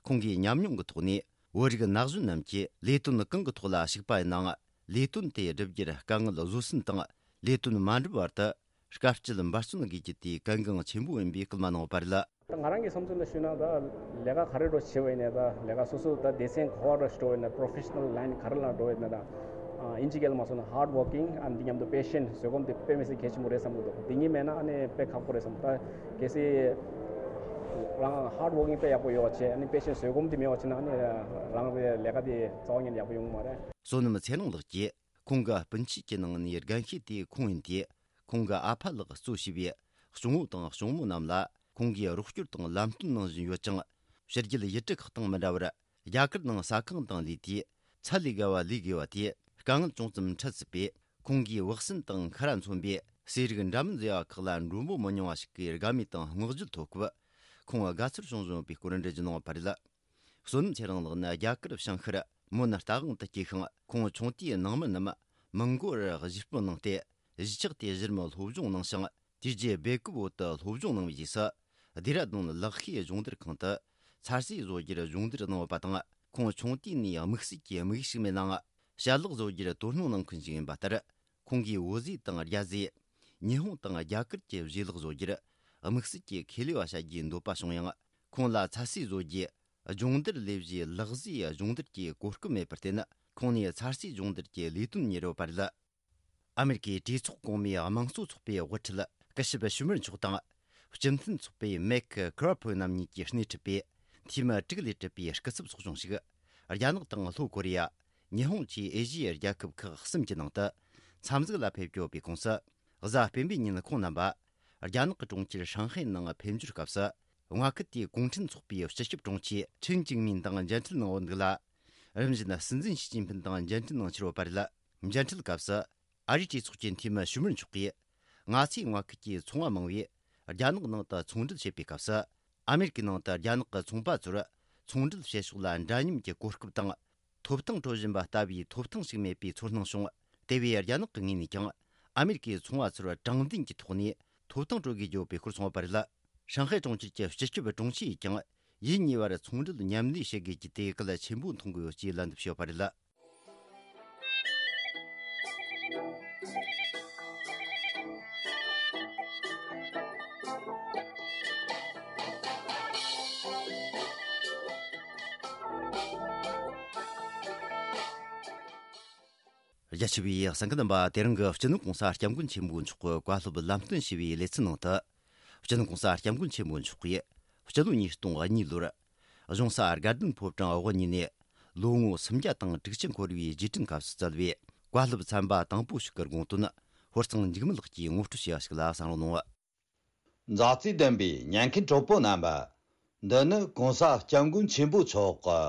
ཁོང་གིས་ཉམས་མྱོང་གི་ཐོག་ནས་བོད་རིགས་ན་གཞོན་རྣམས་ཀྱིས་ལས་དོན་གང་གི་ཐོག་ལ་ཞུགས་པ་ཡིན་ནའང་། ལས་དོན་དེ་བསྒྲུབ་རྒྱུར་དཀའ་ངལ་བཟོད་བསྲན་དང་། ལས་དོན་མ་འགྲུབ་བར་དུ་དཀའ་སྤྱད་འབད་བརྩོན་དགོས་རྒྱུ་དེ་གལ་འགངས་ཆེན་པོ་ཡིན་པའི་སྐུལ་མ་གནང་ཡོད་པ་རེད། ད་ང་རང་གི་བསམ་ཚུལ་ལ་ཞུས་ན། ད་ལས་ཀ་ག་རེ་འགྲོ་བྱེད་པ་ཡིན་ནའི། ད་ལས་ཀ་སོ་སོ་ད་སྡེ་ཚན་ག་པར་འགྲོ་ཡིན་ན། ད་པྲོ་ཕེ་ཤ་ནལ་ལའིན་ག་རེ་ལ་འགྲོ་ཡིན་ན། ད་ཨིན་ཇི་སྐད་ལ་མ་སོང་ན་ཧར་ཌི་ཝོར་ཀིང་ཨ་འདི་མཉམ་དུ་པེ་ཤེན་ཊི་བཟོད་སྒོམ་དེ་དཔེ་མི་སྲིད་གལ་ཆེན་པོ་རེད་བསམ་གྱི་འདུག་དེ་གཉིས་མེད་ན་ཨ་ནི་དཔེ་ཁག་པོ་རེད་བསམ། ད་གལ་སྲིད་རང་ཧར་ཌི་ཝོར་ཀིང་དཔེ་ཡག་པོ་ཡོད་པ་བྱས། ཨ་ནི་པེ་ཤེན་ཊི་བཟོད་སྒོམ་དེ་མེད་པ་བྱས་ན། ཨ་ནི་རང་རེ་ལས་ཀ་དེ་རྩ་བ་ཉིད་ནས་ཡག་པོ་ཡོང་གི་མ་རེད། བསོད་ནམས་ཚེ་རིང་ལགས་ཀྱིས་ཁོང་གི་སྤུན་མཆེད་ཀྱི་ནང་ནས་རྒན་ཤོས་དེ་ཁོང་ཡིན་ཏེ། ཁོང་གི་ཨ་ཕ་ལགས་གཙོ་བྱས་པའི་གཅུང་བོ་དང་གཅུང་མོ་རྣམས་ལ་ཁོང་གིས་རོགས་སྐྱོར་དང་ལམ་སྟོན་གནང་བཞིན་ཡོད་ཅིང་། ཕྱི་རྒྱལ་ཡུལ་གྲུ་ཁག་དང་མི་འདྲ་བར་རྒྱ་གར་ནང་ཟ་ཁང་དང་ལས་དུས་ཚད་ལས་བརྒལ་བ་ལས་དགོས་པ་དེ་དཀའ་ངལ་ཅུང་ཙམ་འཕྲད་སྲིད་པས། ཁོང་གིས་བག་ཟོན་དང་ཁ་ར་མཚོན་པའི་ཟས་རིགས་འདྲ་མིན་བཟོ་ཡ་ཁག་ལ་མགྲོན་པོ་མི་ཉུང་བ་ཞིག་གིས་དགའ་མོས་དང་བསྔགས་བརྗོད་ཐོབ་སྐབས། ཁོང་དགའ་ཚོར་བྱུང་བཞིན་ཡོད་པའི་སྐོར་འགྲེལ་བརྗོད་གནང་བ་རེད། བསོད་ནམས་ཚེ་རིང་ལགས་ནི་རྒྱ་གར་བྱང་ཤར་མོན་རྟ་དབང་དུ་སྐྱེས་ཤིང་། ཁོང་ཆུང་དུས་ནང་མི་རྣམས་མོན་གོལ་གཞིས་སྤོ་གནང་སྟེ། གཞིས་ཆགས་དེའི་གཞི་རིམ་སློབ་སྦྱོང་གནང་ཞིང་། དེ་རྗེས་སྦེལ་ཀོབ་བོད་དུ་སློབ་སྦྱོང་གནང་བའི་རྗེས་སུ། སྡེ་ར་ལྡུན་ལག་ཤེས་སྦྱོང་བརྡར་ཁང་དུ་ཚ་སྲེག་བཟོ་རྒྱུར་སྦྱོང་བརྡར་གནང་ཡོད་པ་དང་། ཁོང་ཆུང་དུས་ནས་དམིགས་བསལ་གྱི་དམིགས་ཡུལ་ཞིག་མེད་ནའང་། ཞལ་ལག་བཟོ་རྒྱུར་དོ་སྣང་གནང་མཁན་ཞིག་ཡིན་པ་ལྟར། ཁོང་གིས་བོད་ཟས་དང་རྒྱ་ཟས། ཉི་ཧོང་དང་རྒྱ་གར་གྱི་བཞེས་ལག་བཟོ་རྒྱུར་དམིགས་བསལ་གྱི་ཁས་ལེན་པ་བྱ་རྒྱུའི་འདོད་པ་བྱུང་ཡང་། ཁོང་ལ་ཚ་སྲེག་བཟོ་རྒྱུའི་སྦྱོང་བརྡར་ལས་གཞིའི་ལག་ཟས་སྦྱོང་བརྡར་གྱི་གོ་སྐབས་མེད་པར་བརྟེན། ཁོང་ནས་ཚ་སྲེག་སྦྱོང་བརྡར་གྱི་ལས་དོན་གཉེར་ཡོད་པ་རེད། ཨ་མེ་རི་ཀའི་གྲོས་ཚོགས་གོང་མའི་དམངས་གཙོ་ཚོགས་པའི་དབུ་ཁྲིད་སྐུ་ཞབས་ཞུ་མར་མཆོག་དང་། སྤྱི་མཐུན་ཚོགས་པའི་མེག་ཁེ་ར་ཕོ་རྣམ་གཉིས་ཀྱིས་སྣེ་ཁྲིད་པའི་འཐུས་མི་དྲུག་ལས་གྲུབ་པའི་སྐུ་ཚབ་ཚོགས་ཆུང་ཞིག་རྒྱ་ནག་དང་ལྷོ་ཀོ་རི་ཡ། ཉི་ཧོང་བཅས་ཨེ་ཤི་ཡའི་རྒྱལ་ཁབ་ཁག་གསུམ་གྱི་ནང་དུ་འཚམས་གཟིགས་ལ་ཕེབས་ཀྱི་ཡོད་པའི་ཁོངས་སུ། གཟའ་སྤེན་པའི་ཉིན་ཁོང་རྣམ་པ་རྒྱ་ནག་གི་གྲོང་ཁྱེར་ཧྲང་ཧའེ་ནང་ཕེབས་འབྱོར་སྐབས་སུ། མངའ་ཁུལ་དེའི་གུང་ཁྲན་ཚོགས་པའི་སྤྱི་ཁྱབ་དྲུང་ཆེ་ཁྲིན་ཅིང་མིན་དང་མཇལ་འཕྲད་གནང་ཡོད་འདུག་ལ། རིམ་བཞིན་སྲིད་འཛིན་ཞི་ཅིན་ཕིན་དང་མཇལ་འཕྲད་གནང་འཆར་ཡོད་པ་རེད། མཇལ་འཕྲད་སྐབས་སུ། ཨ་རིའི་གྲོས་ཚོགས་ཀྱི་འཐུས་མི་ཞུ་མར་མཆོག་གིས། ང་ཚོའི་མངའ་ཁུལ་གྱི་ཚོང་བ་མང་བོས་རྒྱ་ནག་ནང་དུ་ཚོང་འབྲེལ་བྱེད་པའི་སྐབས་སུ། ཨ་མེ་རི་ཀའི་ནང་དུ་རྒྱ་ནག་གི་ཚོང་པ་ཚོར་ཚོང་འབྲེལ་བྱེད་ཕྱོགས་ལ་འདྲ་མཉམ་གྱི་གོ་སྐབས་དང་། ཐོབ་ཐང་སྤྲོད་བཞིན་པ་ལྟ་བུའི་ཐོབ་ཐང་ཞིག་མེད་པའི་ཚོར་སྣང་བྱུང་། དེ་བས་རྒྱ་ནག་གི་ངོས་ནས་ཀྱང་ཨ་མེ་རི་ཀའི་ཚོང་བ་ཚོར་དྲང་བདེན་གྱི་ཐོག་ནས་ཐོབ་ཐང་སྤྲོད་དགོས་ཀྱི་ཡོད་པའི་སྐོར་གསུངས་པ་རེད། ཧྲང་ཧའེ་གྲོང་ཁྱེར་གྱི་སྤྱི་ཁྱབ་དྲུང་ཆེ་ཡིས་ཀྱང་ཡུལ་གཉིས་བར་ཚོང་འབྲེལ་མཉམ་ལས་བྱེད་དགོས་ཀྱི་དེ་གལ་ཆེན་པོ་མཐོང་གི་ཡོད་ཅེས་ལན་འདེབས་བྱས་ཡོད་པ་རེད། རྒྱ་ཆེ་བའི་གསན་མཁན་རྣམ་པ། དེ་རིང་གི་སྤྱི་ནོར་གོང་ས་སྐྱབས་མགོན་ཆེན་པོ་མཆོག་གི་བཀའ་སློབ་ལམ་སྟོན་ཞུ་བའི་ལེ་ཚན་ནང་དུ། སྤྱི་ནོར་གོང་ས་སྐྱབས་མགོན་ཆེན་པོ་མཆོག་གིས་སྤྱི་ལོ་ཉིས་སྟོང་གཉིས་ལོར་གཞུང་ས་དགའ་ལྡན་ཕོ་བྲང་དབུ་བརྙེས་ནས་ལོ་ངོ་སུམ་བརྒྱ་དང་དྲུག་ཅུ་འཁོར་བའི་རྗེས་དྲན་སྐབས་སུ་བསྩལ་བའི་བཀའ་སློབ་ཚན་པ་དང་པོ་ཞིག་གི་དགོངས་དོན། ཧོར་གཙང་འཇིགས་མེད་ལགས་ཀྱིས་ངོ་སྤྲོད་བྱས་པ་ཞིག་ལ་གསན་རོགས་གནང་། མཛའ་བརྩེ་ལྡན་པའི་ཉན་མཁན་གྲོགས་པོ་རྣམ་པ། འདི་ནི་གོང་ས་སྐྱབས་མགོན་ཆེན་པོ་མཆོག་གི་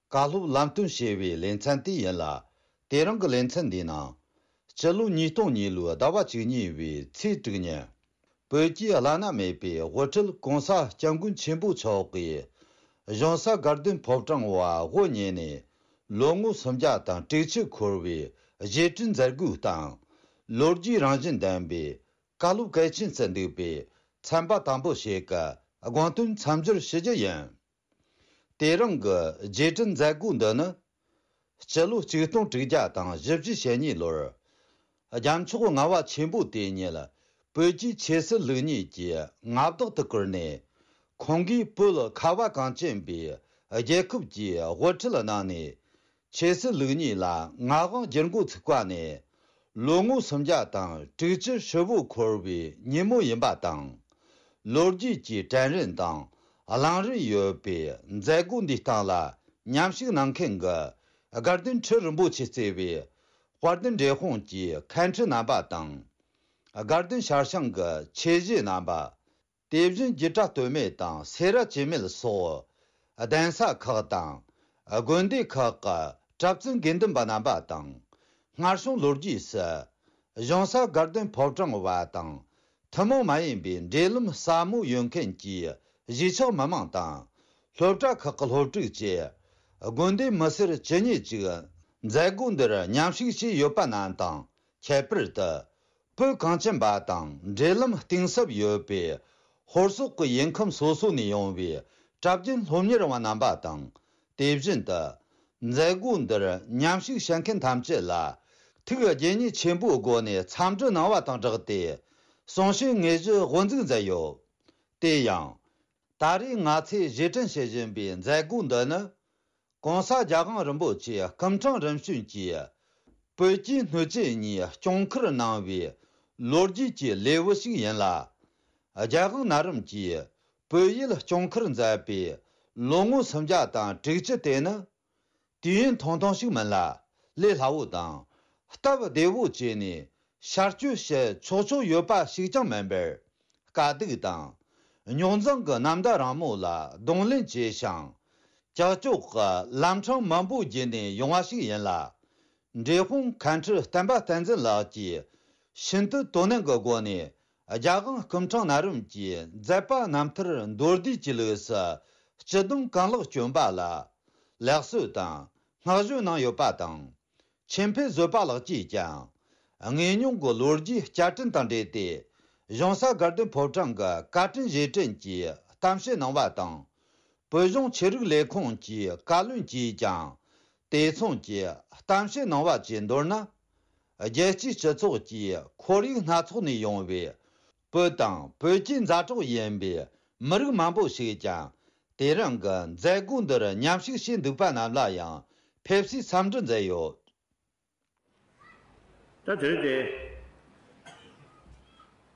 བཀའ་སློབ་ལམ་སྟོན་ཞེས་པའི་ལེ་ཚན་དེ་ཡིན་ལ། དེ་རིང་གི་ལེ་ཚན་འདིའི་ནང་། སྤྱི་ལོ་ཉིས་སྟོང་གཉིས་ལོའི་ཟླ་བ་བཅུ་གཉིས་པའི་ཚེས་དྲུག་ཉིན། བོད་ཀྱི་བླ་ན་མེད་པའི་དབུ་ཁྲིད་གོང་ས་སྐྱབས་མགོན་ཆེན་པོ་མཆོག་གིས། གཞུང་ས་དགའ་ལྡན་ཕོ་བྲང་བ་དབུ་བརྙེས་ནས་ལོ་ངོ་སུམ་བརྒྱ་དང་དྲུག་ཅུ་འཁོར་བའི་རྗེས་དྲན་མཛད་སྒོའི་སྟེང་། ལོ་རྒྱུས་རང་བཞིན་ལྡན་པའི་བཀའ་སློབ་གལ་ཆེན་ཚུ་འདུས་པའི་ཚན་པ་དང་པོ་ཞིག་གི་དགོངས་དོན་མཚམས་སྦྱོར་ཞུ་རྒྱུ་ཡིན། དེ་རིང་གི་རྗེས་དྲན་མཛད་སྒོ་འདི་ནི། སྤྱི་ལོ་ཆིག་སྟོང་དྲུག་བརྒྱ་དང་བཞི་བཅུ་ཞེ་གཉིས་ལོར། རྒྱལ་མཆོག་ལྔ་པ་ཆེན་པོ་དེ་ཉིད་བོད་ཀྱི་ཆོས་སྲིད་ལུགས་གཉིས་ཀྱི་མངའ་བདག་ཏུ་བཀུར་ནས། ཁོང་གིས་བོད་ཁ་བ་གངས་ཅན་པའི་རྒྱལ་ཁབ་ཀྱི་དབུ་ཁྲིད་གནང་ནས། ཆོས་སྲིད་ལུགས་གཉིས་ལ་མངའ་དབང་བསྒྱུར་འགོ་ཚུགས་པ་ནས། ལོ་ངོ་སུམ་བརྒྱ་དང་དྲུག་ཅུ་ཧྲིལ་བོ་འཁོར་བའི་ཉིན་མོ་ཡིན་པ་དང་། ལོ་རྒྱུས་ཀྱི་དྲན་རིན་དང་བླང་རིན་ཡོད་པའི་མཛད་སྒོ་འདིའི་སྟེང་ལ་མཉམ་ཞུགས་གནང་མཁན་གྱི་དགའ་ལྡན་ཁྲི་རིན་པོ་ཆེ་གཙོས་པའི་དཔལ་ལྡན་འབྲས་སྤུངས་ཀྱི་མཁན་ཁྲི་རྣམ་པ་དང་། དགའ་ལྡན་ཤར་བྱང་གི་ཆོས་གཞིས་རྣམ་པ། དེ་བཞིན་སྒྱུ་སྒྲ་སྟོད་སྨད་དང་སེ་ར་བྱེས་སྨད་སོགས་གདན་ས་ཁག་དང་། དགོན་སྡེ་ཁག་གི་གྲྭ་བཙུན་དགེ་འདུན་པ་རྣམ་པ་དང་། སྔར་བྱུང་ལོ་རྒྱུས་སུ། གཞུང་ས་དགའ་ལྡན་ཕོ་བྲང་བ་དང་། ཐུན་མོང་མ་ཡིན་པའི་འབྲེལ་ལམ་ཟབ་མོ་ཡོད་མཁན་གྱི་གཞིས་ཆགས་མི་མང་དང་། སློབ་གྲྭ་ཁག་གི་སློབ་ཕྲུག་བཅས། དགོན་སྡེ་མི་སེར་ཇི་སྙེད་ཅིག་མཛད་སྒོ་འདིར་མཉམ་ཞུགས་བྱས་ཡོད་པ་རྣམས་དང་། ཁྱད་པར་དུ། བོད་གངས་ཅན་པ་དང་འབྲེལ་ལམ་གཏིང་ཟབ་ཡོད་པའི་ཧོར་སོག་གི་ཡུལ་ཁམས་སོ་སོ་ནས་ཡོང་བའི་གྲྭ་རྒྱུན་སློབ་གཉེར་བ་རྣམ་པ་དང་། དེ་བཞིན་དུ། མཛད་སྒོ་འདིར་མཉམ་ཞུགས་བྱེད་མཁན་ཐམས་ཅད་ལ་ཐུགས་དགྱེས་མཉེས་ཆེན་པོའི་སྒོ་ནས་འཚམས་འདྲི་གནང་བ་དང་སྦྲགས་ཏེ། གསུང་བཤད་དངོས་གཞི་དབུ་འཛུགས་མཛད་ཡོད། དེ་ཡང་། ད་རེས་ང་ཚོས་གཞས་འཁྲིད་བྱེད་བཞིན་པའི་མཛད་སྒོ་འདི་ནི། གོང་ས་རྒྱལ་དབང་རིན་པོ་ཆེ་སྐུ་ཕྲེང་རིམ་བྱོན་གྱིས་བོད་ཀྱི་སྣོད་བཅུད་གཉིས་སྐྱོང་ཁུར་གནང་བའི་ལོ་རྒྱུས་ཀྱི་ལེའུ་ཞིག་ཡིན་ལ། རྒྱལ་དབང་ན་རིམ་གྱིས་བོད་ཡུལ་སྐྱོང་ཁུར་མཛད་པའི་ལོ་ངོ་སུམ་བརྒྱ་དང་དྲུག་ཅུ་དེ་ནི། དུས་ཡུན་ཐུང་ཐུང་ཞིག་མིན་ལ། ལས་སླ་བོ་དང་། སྟབས་བདེ་བོ་བྱས་ནས་ཤར་སྐྱོད་བྱེད་ཆོག་ཆོག་ཡོད་པ་ཞིག་ཀྱང་མིན་པར། དཀའ་སྡུག་དང་། རྙོག་འཛིང་གི་ནམ་ཟླ་རིང་མོ་ལ་གདོང་ལེན་བྱས་ཤིང་། ཀྱག་ཀྱོག་གི་ལམ་འཕྲང་མང་པོ་བརྒྱུད་ནས་ཡོང་བ་ཞིག་ཡིན་ལ། འབྲས་སྤུངས་མཁན་ཁྲི་བསྟན་པ་བསྟན་འཛིན་ལགས་ཀྱིས་ཤིན་ཏུ་དོ་ནན་གྱི་སྒོ་ནས་རྒྱལ་དབང་སྐུ་ཕྲེང་ན་རིམ་གྱི་མཛད་པ་རྣམ་ཐར་མདོར་བསྡུས་ཀྱི་ལུགས་སུ་སྤྱི་སྡོམ་གང་ལེགས་བསྐྱོན་པ་ལ། ལེགས་གསོལ་དང་བསྔགས་བརྗོད་གནང་ཡོད་པ་དང་། ཆོས་འཕེལ་བཟོད་པ་ལགས་ཀྱིས་ཀྱང་དངོས་མྱོང་གི་ལོ་རྒྱུས་བསྐྱར་དྲན་དང་འབྲེལ་ཏེ། གཞུང་ས་དགའ་ལྡན་ཕོ་བྲང་གི་བཀའ་དྲིན་རྗེས་དྲན་གྱི་གཏམ་བཤད་གནང་བ་དང་། བོད་གཞུང་ཆོས་རིག་ལས་ཁུངས་ཀྱི་བཀའ་བློན་གྱིས་ཀྱང་དེ་མཚུངས་ཀྱི་གཏམ་བཤད་གནང་བ་བཅས་མདོར་ན། རྒྱལ་སྤྱིའི་སྤྱི་ཚོགས་ཀྱི་ཁོར་ཡུག་སྣ་ཚོགས་ནས་ཡོང་བའི་བོད་དང་བོད་ཀྱི་མཛའ་གྲོགས་ཡིན་པའི་མི་རིགས་མང་པོ་ཞིག་ཀྱང་དེ་རིང་གི་མཛད་སྒོ་འདིར་མཉམ་ཞུགས་བྱས་འདུག་པ་རྣམས་ལ་ཡང་ཕེབས་བསུའི་འཚམས་འདྲི་མཛད་ཡོད། ད་དེ་རིང་དེ་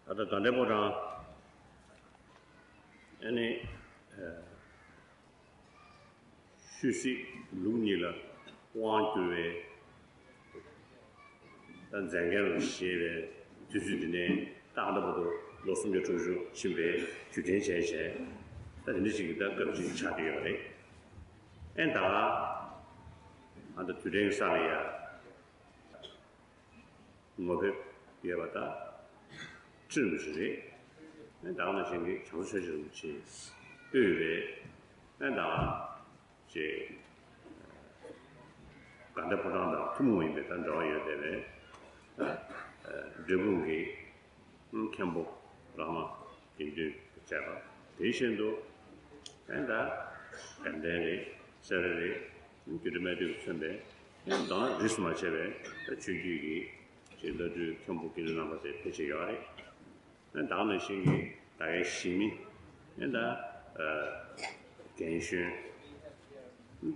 ད་ལྟ་དགའ་ལྡན་ཕོ་བྲང་ཨ་ནི་ཆོས་སྲིད་ལུགས་གཉིས་ལ་དབང་བསྒྱུར་བའི་ད་མཛད་འགན་ལ་བཞེས་པའི་དུས་ཚོད་འདི་ནས་ད་ལྟ་བར་དུ་ལོ་སུམ་བརྒྱ་དྲུག་ཅུ་ཕྱིན་པའི་དུས་དྲན་བྱས་བྱས་ད་དེ་འདྲ་ཞིག་གི་ད་སྐབས་ཅིག་ཆགས་ཀྱི་ཡོད་རེད། ཨེ་ད་ཨ་ད་དུས་དྲན་གྱི་ས་ལ་ཡ། ངོ་དེབ་ཡོད་པ་དང་ཁྲིམས་ཞིག་རེད། ད་ག་ནང་བཞིན་གྱི་བྱང་ཆུབ་ཤེས་བྱ་རིན་པོ་ཆེ་དབུས་པའི་ཨ་ད་ཅེ་དགའ་ལྡན་ཕོ་བྲང་དང་ཐུན་མོང་ཡིན་པའི་ད་འབྲེལ་བ་ཡོད་བསྡད་པའི་འབྲས་སྤུངས་ཀྱི་མཁན་པོ་རང་དབང་དགེ་འདུན་བཅས་པ་དེ་བཞིན་དུ་ཨ་ད་དགའ་ལྡན་རེད་སེ་ར་རེད་རྒྱུད་སྟོད་སྨད་སྟོད་ཀྱི་མཚོན་པའི་ཨ་ད་རིས་སུ་མ་ཆད་པའི་ཆོས་བརྒྱུད་ཀྱི་ཅེས་བླ་སྤྲུལ་མཁན་པོ་དགེ་འདུན་རྣམ་པ་ཚོས་ཕལ་ཆེར་ཡོད་རེད། ད་ག་ནང་བཞིན་གྱི་ད་གའི་གཞིས་མི་ཨེ་ད་རྒན་གཞོན་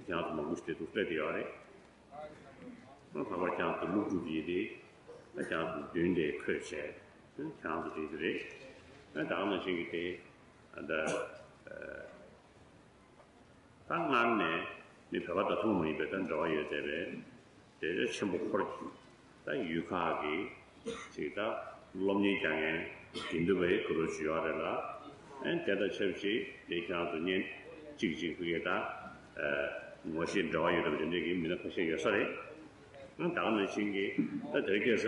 ཀྱང་མང་པོ་ཞིག་དེ་འདུག་སྤྲད་དེ་ཡོད་རེད། ལྷག་པར་ཀྱང་དུ་སློབ་ཕྲུག་ཡིན་ཏེ་ད་ཀྱང་དུ་མདུན་དེ་འཁོད་བྱས་ཀྱང་དུ་བྲིས་ཏེ་རེད། ད་ག་ནང་བཞིན་གྱི་དེ་ད། ད་སྔར་ནས་ནི་བོད་པ་དང་ཐུན་མོང་མ་ཡིན་པའི་ད་འབྲེལ་བ་ཡོད་བསྡད་པའི་དེ་ཆེན་པོ་འཁོར་གྱི་ད་ཡུལ་ཁག་གི་ཅིག་ད་སློབ་གཉེར་རྒྱག་མཁན་དགེ་འདུན་པའི་གུ་རུ་ཅིག་ཡོད་རེད་ལ། ཨེ་དེ་དང་ཆབས་ཅིག་དེ་ཁྱེད་རང་ཚོ་གཉེན་གཅིག་གཅིག་ཕུད་ཀྱི་ད་ངོ་ཤེས་འབྲེལ་བ་ཡོད་པ་དེ་འདྲའི་གི་མི་སྣ་ཁ་ཤས་ཡོད་ས་རེད། ཨ་ད་ག་ནང་བཞིན་གྱི་ད་དེ་སྐད་ཆ་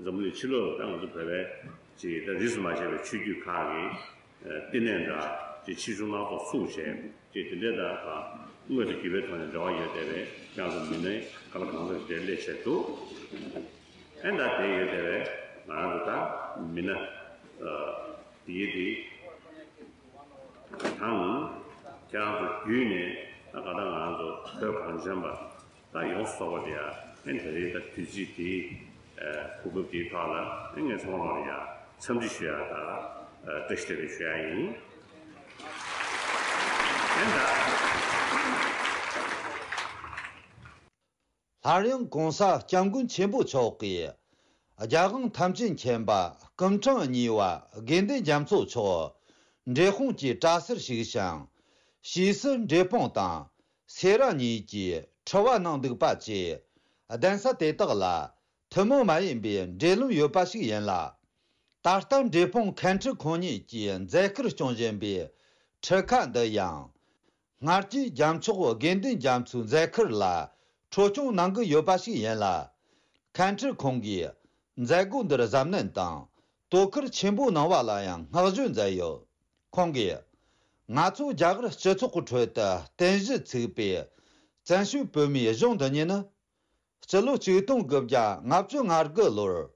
འཛམ་བུ་གླིང་ཕྱི་ལོགས་ལ་ད་ང་ཚོ་བོད་པའི་ཅིག་ད་རིས་སུ་མ་ཆད་པའི་ཆོས་བརྒྱུད་ཁག་གི་བསྟི་གནས་འདྲ་ཅིག་ཆེ་ཆུང་སྣ་ཚོགས་ཚུགས་བྱས་ཅིག་དེ་འདྲའི་ད་དངོས་དང་བརྒྱུད་པའི་ཐོག་ནས་འབྲེལ་བ་ཡོད་བསྡད་པའི་ཁྱེད་རང་ཚོ་མི་སྣའི་ག་ལ་གང་འཚམ་ཞིག་དེ་སླེབས་བྱས་འདུག་ཨེ་ད་དེ་ཡོད་བསྡད་པའི་ང་རང་ཚོ་ད་མི་སྣ་དེའི་དེ་དང་ཁྱེད་རང་ཚོ་བརྒྱུད་ནས་ད་ག་ད་ང་རང་ཚོ་བོད་གངས་ཅན་པ། ད་ཡོངས་སུ་རྫོགས་པ་དེ་ཡང་ཨེ་ད་རེས་ད་དུས་ཚིགས་དེའི་གོ་སྐབས་དེའི་ཐོག་ལ་ཨེ་ངས་ཚང་མ་ལ་ཡང་འཚམས་འདྲི་ཞུ་ཡ་ད་བཀྲ་ཤིས་བདེ་ལེགས་ཞུ་ཡ་ཡིན། ཨེ་ད་སླར་ཡང་གོང་ས་སྐྱབས་མགོན་ཆེན་པོ་མཆོག་གིས་རྒྱལ་དབང་ཐམས་ཅད་མཁྱེན་པ་སྐུ་ཕྲེང་གཉིས་པ་དགེ་འདུན་རྒྱ་མཚོ་མཆོག་འབྲས་སྤུངས་ཀྱི་གྲྭ་སར་བཞུགས་ཤིང་ཕྱིས་སུ་འབྲས་སྤུངས་དང་། སེ་ར་གཉིས་ཀྱི་ཁྲི་བ་གནང་འདུག་པ་བཅས་གདན་ས་དེ་དག་ལ་ཐུན་མོང་མ་ཡིན་པའི་འབྲེལ་ལམ་ཡོད་པ་ཞིག་ཡིན་ལ། ད་ལྟ་འབྲས་སྤུངས་མཁན་ཁྲི་ཁོང་ཉིད་ཀྱིས་མཛད་ཁུར་སྐྱོང་བཞིན་པའི་ཁྲི་ཁ་འདི་ཡང་སྔར་གྱི་རྒྱལ་མཆོག་དགེ་འདུན་རྒྱ་མཚོའི་མཛད་ཁུར་ལ་འཕྲོ་སྐྱོང་གནང་གི་ཡོད་པ་ཞིག་ཡིན་ལ། མཁན་ཁྲི་ཁོང་གིས་མཛད་སྒོ་འདིར་གཟབ་ནན་དང་དོ་ཁུར་ཆེན་པོ་གནང་བ་ལ་ཡང་བསྔགས་བརྗོད་མཛད་ཡོད། ཁོང་གིས། ང་ཚོ་རྒྱ་གར་སྤྱི་ཚོགས་ཀྱི་ཁྲོད་དུ་རྟེན་གཞི་ཚུགས་པའི་བཙན་བྱོལ་བོད་མིའི་གཞུང་འདི་ཉིད་ནི། སྤྱི་ལོ་ཆིག་སྟོང་དགུ་བརྒྱ་ལྔ་བཅུ་ང་དགུ་ལོར།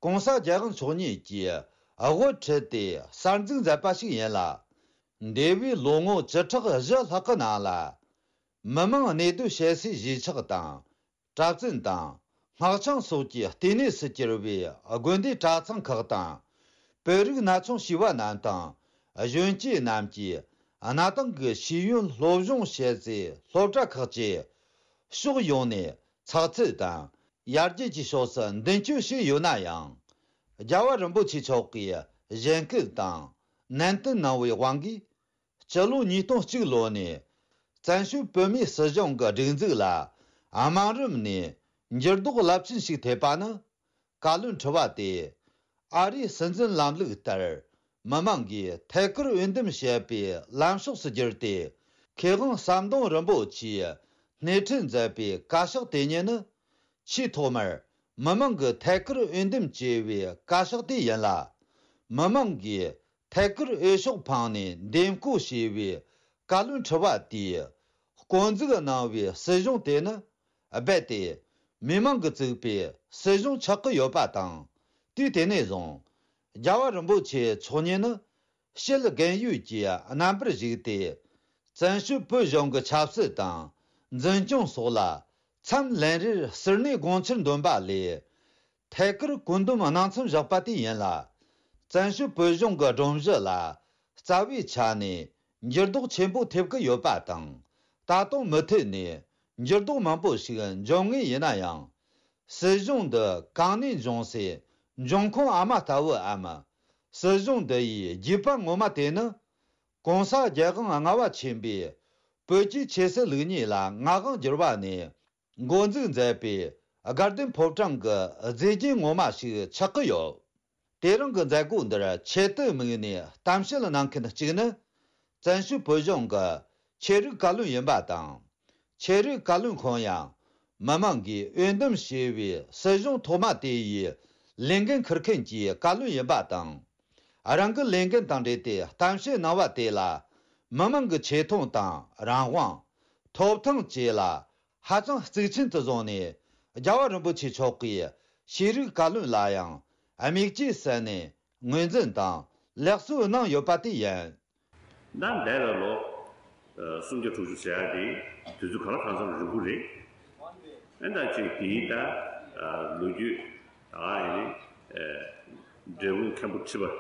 ྋགོང་ས་རྒྱལ་དབང་མཆོག་ཉིད་ཀྱིས་དབུ་ཁྲིད་དེ་གསར་འཛུགས་མཛད་པ་ཞིག་ཡིན་ལ། འདས་པའི་ལོ་ངོ་བཅུ་ཕྲག་བཞི་ལྷག་གི་ནང་ལ། མི་མང་གནས་སྡོད་བྱེད་སའི་གཞིས་ཆགས་དང་། གྲྭ་བཙུན་དང་། སྔགས་འཆང་སོགས་ཀྱི་ལྟེ་གནས་སུ་གྱུར་པའི་དགོན་སྡེ་གྲྭ་ཚང་ཁག་དང་། བོད་རིགས་ན་ཆུང་བྱིས་པ་རྣམས་དང་། གཞོན་སྐྱེས་རྣམས་ཀྱིས་གནའ་དེང་གི་ཤེས་ཡོན་སློབ་སྦྱོང་བྱེད་སའི་སློབ་གྲྭ་ཁག་བཅས་ཕྱོགས་ཡོངས་ནས་ཚགས་ཚུད་དང་ཡར་རྒྱས་ཀྱི་ཕྱོགས་སུ་མདུན་སྐྱོད་བྱས་ཡོད་ན་ཡང་། རྒྱལ་བ་རིན་པོ་ཆེ་མཆོག་གིས་གཞེན་སྐུལ་དང་ནན་སྐུལ་གནང་བའི་དབང་གིས། སྤྱི་ལོ་ཉིས་སྟོང་གཅིག་ལོ་ནས་བཙན་བྱོལ་བོད་མིའི་སྲིད་གཞུང་གི་སྒྲིག་འཛུགས་ལ་དམའ་རིམ་ནས་འགྱུར་ལྡོག་རླབས་ཆེན་ཞིག་ཐེབས་པ་ནི། བཀའ་བློན་ཁྲི་པ་དེས་ཨ་རིའི་སྲིད་འཛིན་ལམ་ལུགས་ལྟར་མི་མང་གིས་ཐད་ཀར་འོས་འདེམས་བྱེད་པའི་ལམ་ཕྱོགས་སུ་བསྒྱུར་ཏེ། མཁས་དབང་ཟམ་གདོང་རིན་པོ་ཆེས་སྣེ་ཁྲིད་མཛད་པའི་བཀའ་ཤག་དེ་ཉིད་ནི། ཆེས་ཐོག་མར་མི་མང་གི་ཐད་ཀར་འོས་འདེམས་བྱས་པའི་བཀའ་ཤག་དེ་ཡིན་ལ། མི་མང་གིས་ཐད་ཀར་འོས་ཤོག་འཕངས་ནས་འདེམས་བསྐོ་བྱས་པའི་བཀའ་བློན་ཁྲི་པ་དེས། བསྐོ་འཛུགས་གནང་བའི་སྲིད་གཞུང་དེ་ནི་རྦད་དེ་མི་མང་གིས་བཙུགས་པའི་སྲིད་གཞུང་ཆགས་ཀྱི་ཡོད་པ་དང་། དུས་དེ་ནས་བཟུང་རྒྱལ་བ་རིན་པོ་ཆེ་མཆོག་ཉིད་ནི་ཕྱི་ལ་རྒན་ཡོལ་གྱི་རྣམ་པར་བཞུགས་ཏེ། བཙན་བྱོལ་བོད་གཞུང་གི་ཆབ་སྲིད་དང་འཛིན་སྐྱོང་སོགས་ལ་མཚམས་ལན་རེར་ཟུར་གནས་དགོངས་འཆར་འདོན་པ་ལས། ཐད་ཀར་བཀོད་འདོམས་གནང་མཚམས་བཞག་པ་དེ་ཡིན་ལ། བཙན་བྱོལ་བོད་གཞུང་གི་སྒྲོམ་གཞི་ལ་རྩ་བའི་ཆ་ནས་འགྱུར་ལྡོག་ཆེན་པོ་ཐེབས་ཀྱི་ཡོད་པ་དང་། ད་དུང་མུ་མཐུད་ནས་འགྱུར་ལྡོག་མང་པོ་ཞིག་འབྱུང་ངེས་ཡིན་ན་ཡང་། སྲིད་གཞུང་འདི་གང་ནས་འབྱུང་སའི་འབྱུང་ཁུངས་ཨ་མ་ལྟ་བུའམ། སྲིད་གཞུང་འདི་ཡི་རྒྱུད་པ་ངོ་མ་དེ་ནི། གོང་ས་རྒྱལ་དབང་ལྔ་པ་ཆེན་པོས་བོད་ཀྱི་ཆོས་སྲིད་ལུགས་གཉིས་ལ་མངའ་དབང་བསྒྱུར་བ་ནས། འགོ་འཛུགས་མཛད་པའི་དགའ་ལྡན་ཕོ་བྲང་གི་མཛེས་རྒྱན་ངོ་མ་ཞིག་ཆགས་ཀྱི་ཡོད། དེ་རིང་གི་མཛད་སྒོ་འདིར་ཆེད་དུ་དམིགས་ནས་གཏམ་བཤད་གནང་མཁན་གཅིག་ནི། བཙན་བྱོལ་བོད་གཞུང་གི་ཆོས་རིག་བཀའ་བློན་ཡིན་པ་དང་། ཆོས་རིག་བཀའ་བློན་ཁོང་ཡང་། མི་མང་གིས་འོས་འདེམས་བྱས་པའི་སྲིད་གཞུང་ཐོག་མ་དེ་ཡི་ལས་འགན་འཁུར་མཁན་གྱི་བཀའ་བློན་ཡིན་པ་དང་། རང་གི་ལས་འགན་དང་འབྲེལ་ཏེ་གཏམ་བཤད་གནང་བ་དེ་ལ། མི་མང་གི་ཆེ་མཐོང་དང་རང་དབང་། ཐོབ་ཐང་བཅས་ལ་ཧ་ཅང་གཙིགས་ཆེན་དུ་བཟུང་ནས། རྒྱལ་བ་རིན་པོ་ཆེ་མཆོག་གིས་ཤེས་རིག་བཀའ་བློན་ལ་ཡང་དམིགས་བཅས་ཟིན་ནས་ངོས་འཛིན་དང་ལེགས་གསོལ་གནང་ཡོད་པ་དེ་ཡིན། ད་འདས་པའི་ལོ་ཨ་སུམ་བརྒྱ་དྲུག་ཅུ་ཟེར་ཡ་དེ་དུས་ཚོད་ག་ལ་གང་འཚམ་རིང་པོ་རེད། ཨ་ད་ཅིག་དེའི་ད་ཨ་ལོ་རྒྱུས་ད་ཨ་ཡིན་ནི་ཨ་འབྲས་སྤུངས་མཁན་པོ་ཁྲི་པ།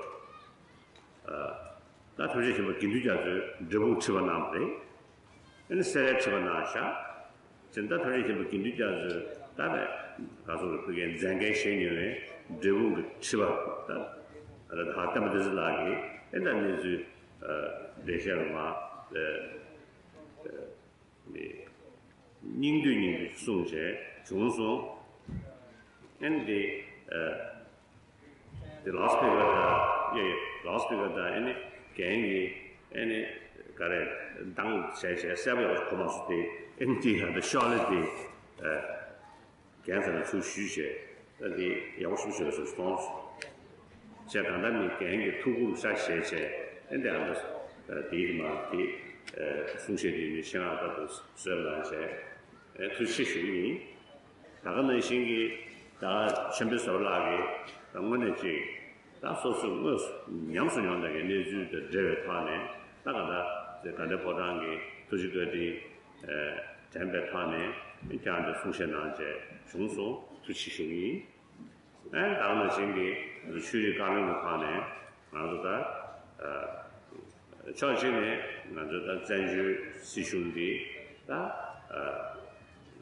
ད་ཐམས་ཅད་མཁྱེན་པ་དགེ་འདུན་རྒྱ་མཚོས་འབྲས་སྤུངས་ཁྲི་པ་གནང་བ་རེད། ཨ་ནི་སེ་རའི་ཁྲི་པ་གནང་བཞག་ཅེས་ད་ཐམས་ཅད་མཁྱེན་པ་དགེ་འདུན་རྒྱ་མཚོས་ད་ནས་ག་སོགས་ཀྱི་བོད་ཀྱི་མཛད་འགན་བཞེས་མྱོང་བའི་འབྲས་སྤུངས་ཀྱི་ཁྲི་པ་ད་ད་བསྟན་པ་བདེ་ཚེ་ལགས་ཀྱིས་ཨེ་ད་གནས་ཚུལ་འགྲེལ་བཤད་རུ་མ་སྙིང་བསྡུས་སྙིང་བསྡུས་གསུངས་བྱས་བྱུང་སོང་། ཨེ་འདི། དེ་ལའུ་སི་སྤི་ཀར་དང་ཡེ་ལའུ་སི་སྤི་ཀར་དང་ཨེ་ནི་རྒན་གྱིས་ཨེ་ནི་ག་རེ་འདང་བྱས་བྱས་གསལ་པོ་ཡག་པོ་གོ་མ་སོང་སྟེ། ཨེ་ནི་དེ་ཡང་དེ་ཤོག་ལེ་དེ་རྒན་ཚང་ལ་ཚུར་ཞུས་བྱས། ད་དེ་ཡག་པོ་ཞིག་བྱས་སོང་སོང་། བྱས་གང་ལྟར་ནི་རྒན་གྱི་ཐུགས་ཁུར་ཤ་བཞེས་བྱས། ཨེ་འདི་ཨ་འདྲ་དེའི་མ་དེ་གསུང་བཤད་དེ་ནི་ཤེས་རག་ལྟར་དུ་གསོལ་གནང་བྱས། ཨེ་ཐུགས་རྗེ་ཆེ་ཞུ་གི་ཡིན། ད་ག་ནང་བཞིན་གྱི་ད་ཆེན་པོའི་ཟུར་ལག་གི་ད་དངོས་གནས་ཅིག་ད་སོ་སོའི་དངོས་སུ་ཉམས་སུ་མྱོང་བསྡད་མཁན་གནས་ཚུལ་དང་འབྲེལ་བའི་ཐོག་ནས། ད་ག་ད་དེ་དགའ་ལྡན་ཕོ་བྲང་གི་ཐུགས་རྗེ་བཀའ་དྲིན་དྲན་པའི་ཐོག་ནས་ཀྱང་དེ་གསུང་བཤད་གནང་བྱས་བྱུང་སོང་། ཐུགས་རྗེ་ཆེ་ཞུ་གི་ཡིན། ཨེ་ད་ག་ནང་བཞིན་གྱི་ཆོས་རིག་བཀའ་བློན་གྱི་ཐོག་ནས་ང་ཚོ་ད་ཕྱོགས་གཅིག་ནས་ང་ཚོ་ད་བཙན་བྱོལ་སྲིད་གཞུང་འདི་ད་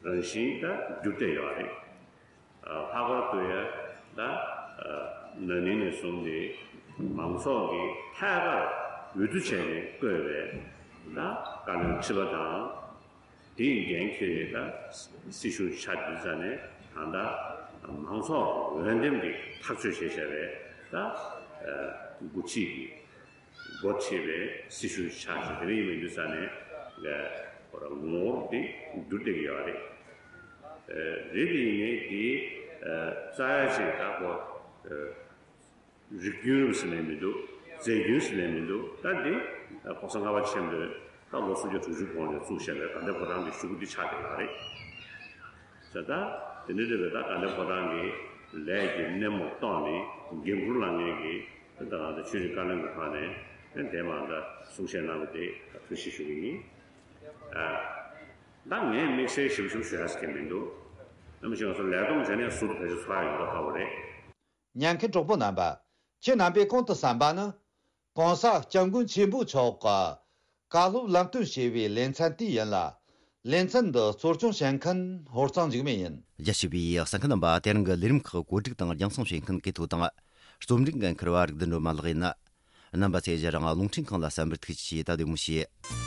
རང་བཞིན་ད་འགྱུར་བསྡད་ཡོད་རེད། ལྷག་པར་དུ་ཡང་ད་ན་ནིང་ནས་བཟུང་སྟེ་མང་ཚོགས་ཀྱིས་ཐད་ཀར་འོས་བསྡུ་བྱས་ནས་བསྐོས་པའི་ད་བཀའ་བློན་ཁྲི་པ་དང་། དེའི་འགན་འཁྱེར་ནས་ད་སྲིད་གཞུང་ཆགས་དུས་ཙ་ནས་ད་ལྟ་མང་ཚོགས་འོས་འདེམས་ཀྱིས་ཐག་གཅོད་བྱས་བཞག་པའི་ད་འགོ་ཁྲིད་ཀྱི་འགོ་ཁྲིད་པའི་སྲིད་གཞུང་ཆགས་ཤིང་། དེ་འདྲ་ཡིན་པའི་དུས་ཙ་ནས་ངོ་བོ་དེ་འགྱུར་བསྡད་ཀྱི་ཡོད་རེད། རེད་དེ་ཡིན་ནའི་དེ་རྩ་ཡ་ཅིག་ད་གོ་རིགས་རྒྱུན་རུ་ཟེར་ནས་མི་འདུག་རྫས་རྒྱུན་ཟེར་ནས་མི་འདུག་ད་འདི་གོང་ས་ལྔ་པ་ཆེན་པོས་ད་ལོ་སུམ་བརྒྱ་དྲུག་ཅུ་གོང་ནས་བཙུགས་བཞག་པའི་དགའ་ལྡན་ཕོ་བྲང་གི་གཞུག་གུ་འདི་ཆགས་བསྡད་ཡོད་རེད། ཟེར་ད་དེ་འདྲ་རེད་པས། ད་དགའ་ལྡན་ཕོ་བྲང་གི་ལས་ཀྱི་སྣེ་མོ་གཏོང་ནས་འགན་འཁུར་བླངས་མཁན་གྱི་ད་ང་ཚོ་ཆོས་རིག་བཀའ་བློན་གྱི་ཕར་ནས་དེ་མ་ད་གསུང་བཤད་གནང་བ་དེ་ཐུགས་རྗེ་ཆེ་ཞུ་གི་ཡིན། ད་ངས་དམིགས་བསལ་ཞིབ་ཞིབ་ཞུ་ཡ་ཟེར་མཁན་མི་འདུག་ནམ་ཞིག་ང་ཚོ་ལས་བསྡོམས་བྱས་ནས་ཟུར་དུ་ཕལ་ཆེར་ཚོར་ཡ་ཡོད་མདོག་ཁ་པོ་རེད། ཉན་མཁན་གྲོགས་པོ་རྣམ་པ། ཁྱེད་རྣམ་པས་གོང་དུ་གསན་པ་ནི། གོང་ས་སྐྱབས་མགོན་ཆེན་པོ་མཆོག་གི་བཀའ་སློབ་ལམ་སྟོན་བྱས་པའི་ལེ་ཚན་དེ་ཡིན་ལ། ལེ་ཚན་འདི་གཙོ་སྐྱོང་བྱེད་མཁན་ཧོར་གཙང་འཇིགས་མེད་ཡིན། རྒྱ་ཆེ་བའི་གསན་མཁན་རྣམ་པ། དེ་རིང་གི་ལས་རིམ་ཁག་གོ་སྒྲིག་དང་རྒྱང་སྲིང་བྱེད་མཁན་གི་ཐོ་དང་། རྩོམ་སྒྲིག་འགན་འཁུར་བ་རིག་ལྡན་སྒྲོལ་མ་ལགས་ཡིན། རྣམ་པ་ཚོས་རང་རླུང་འཕྲིན་ཁང་ལ་གསན་པར་ཐུགས་རྗེ་ཆེ། ད་བདེ་མོ་བྱོས།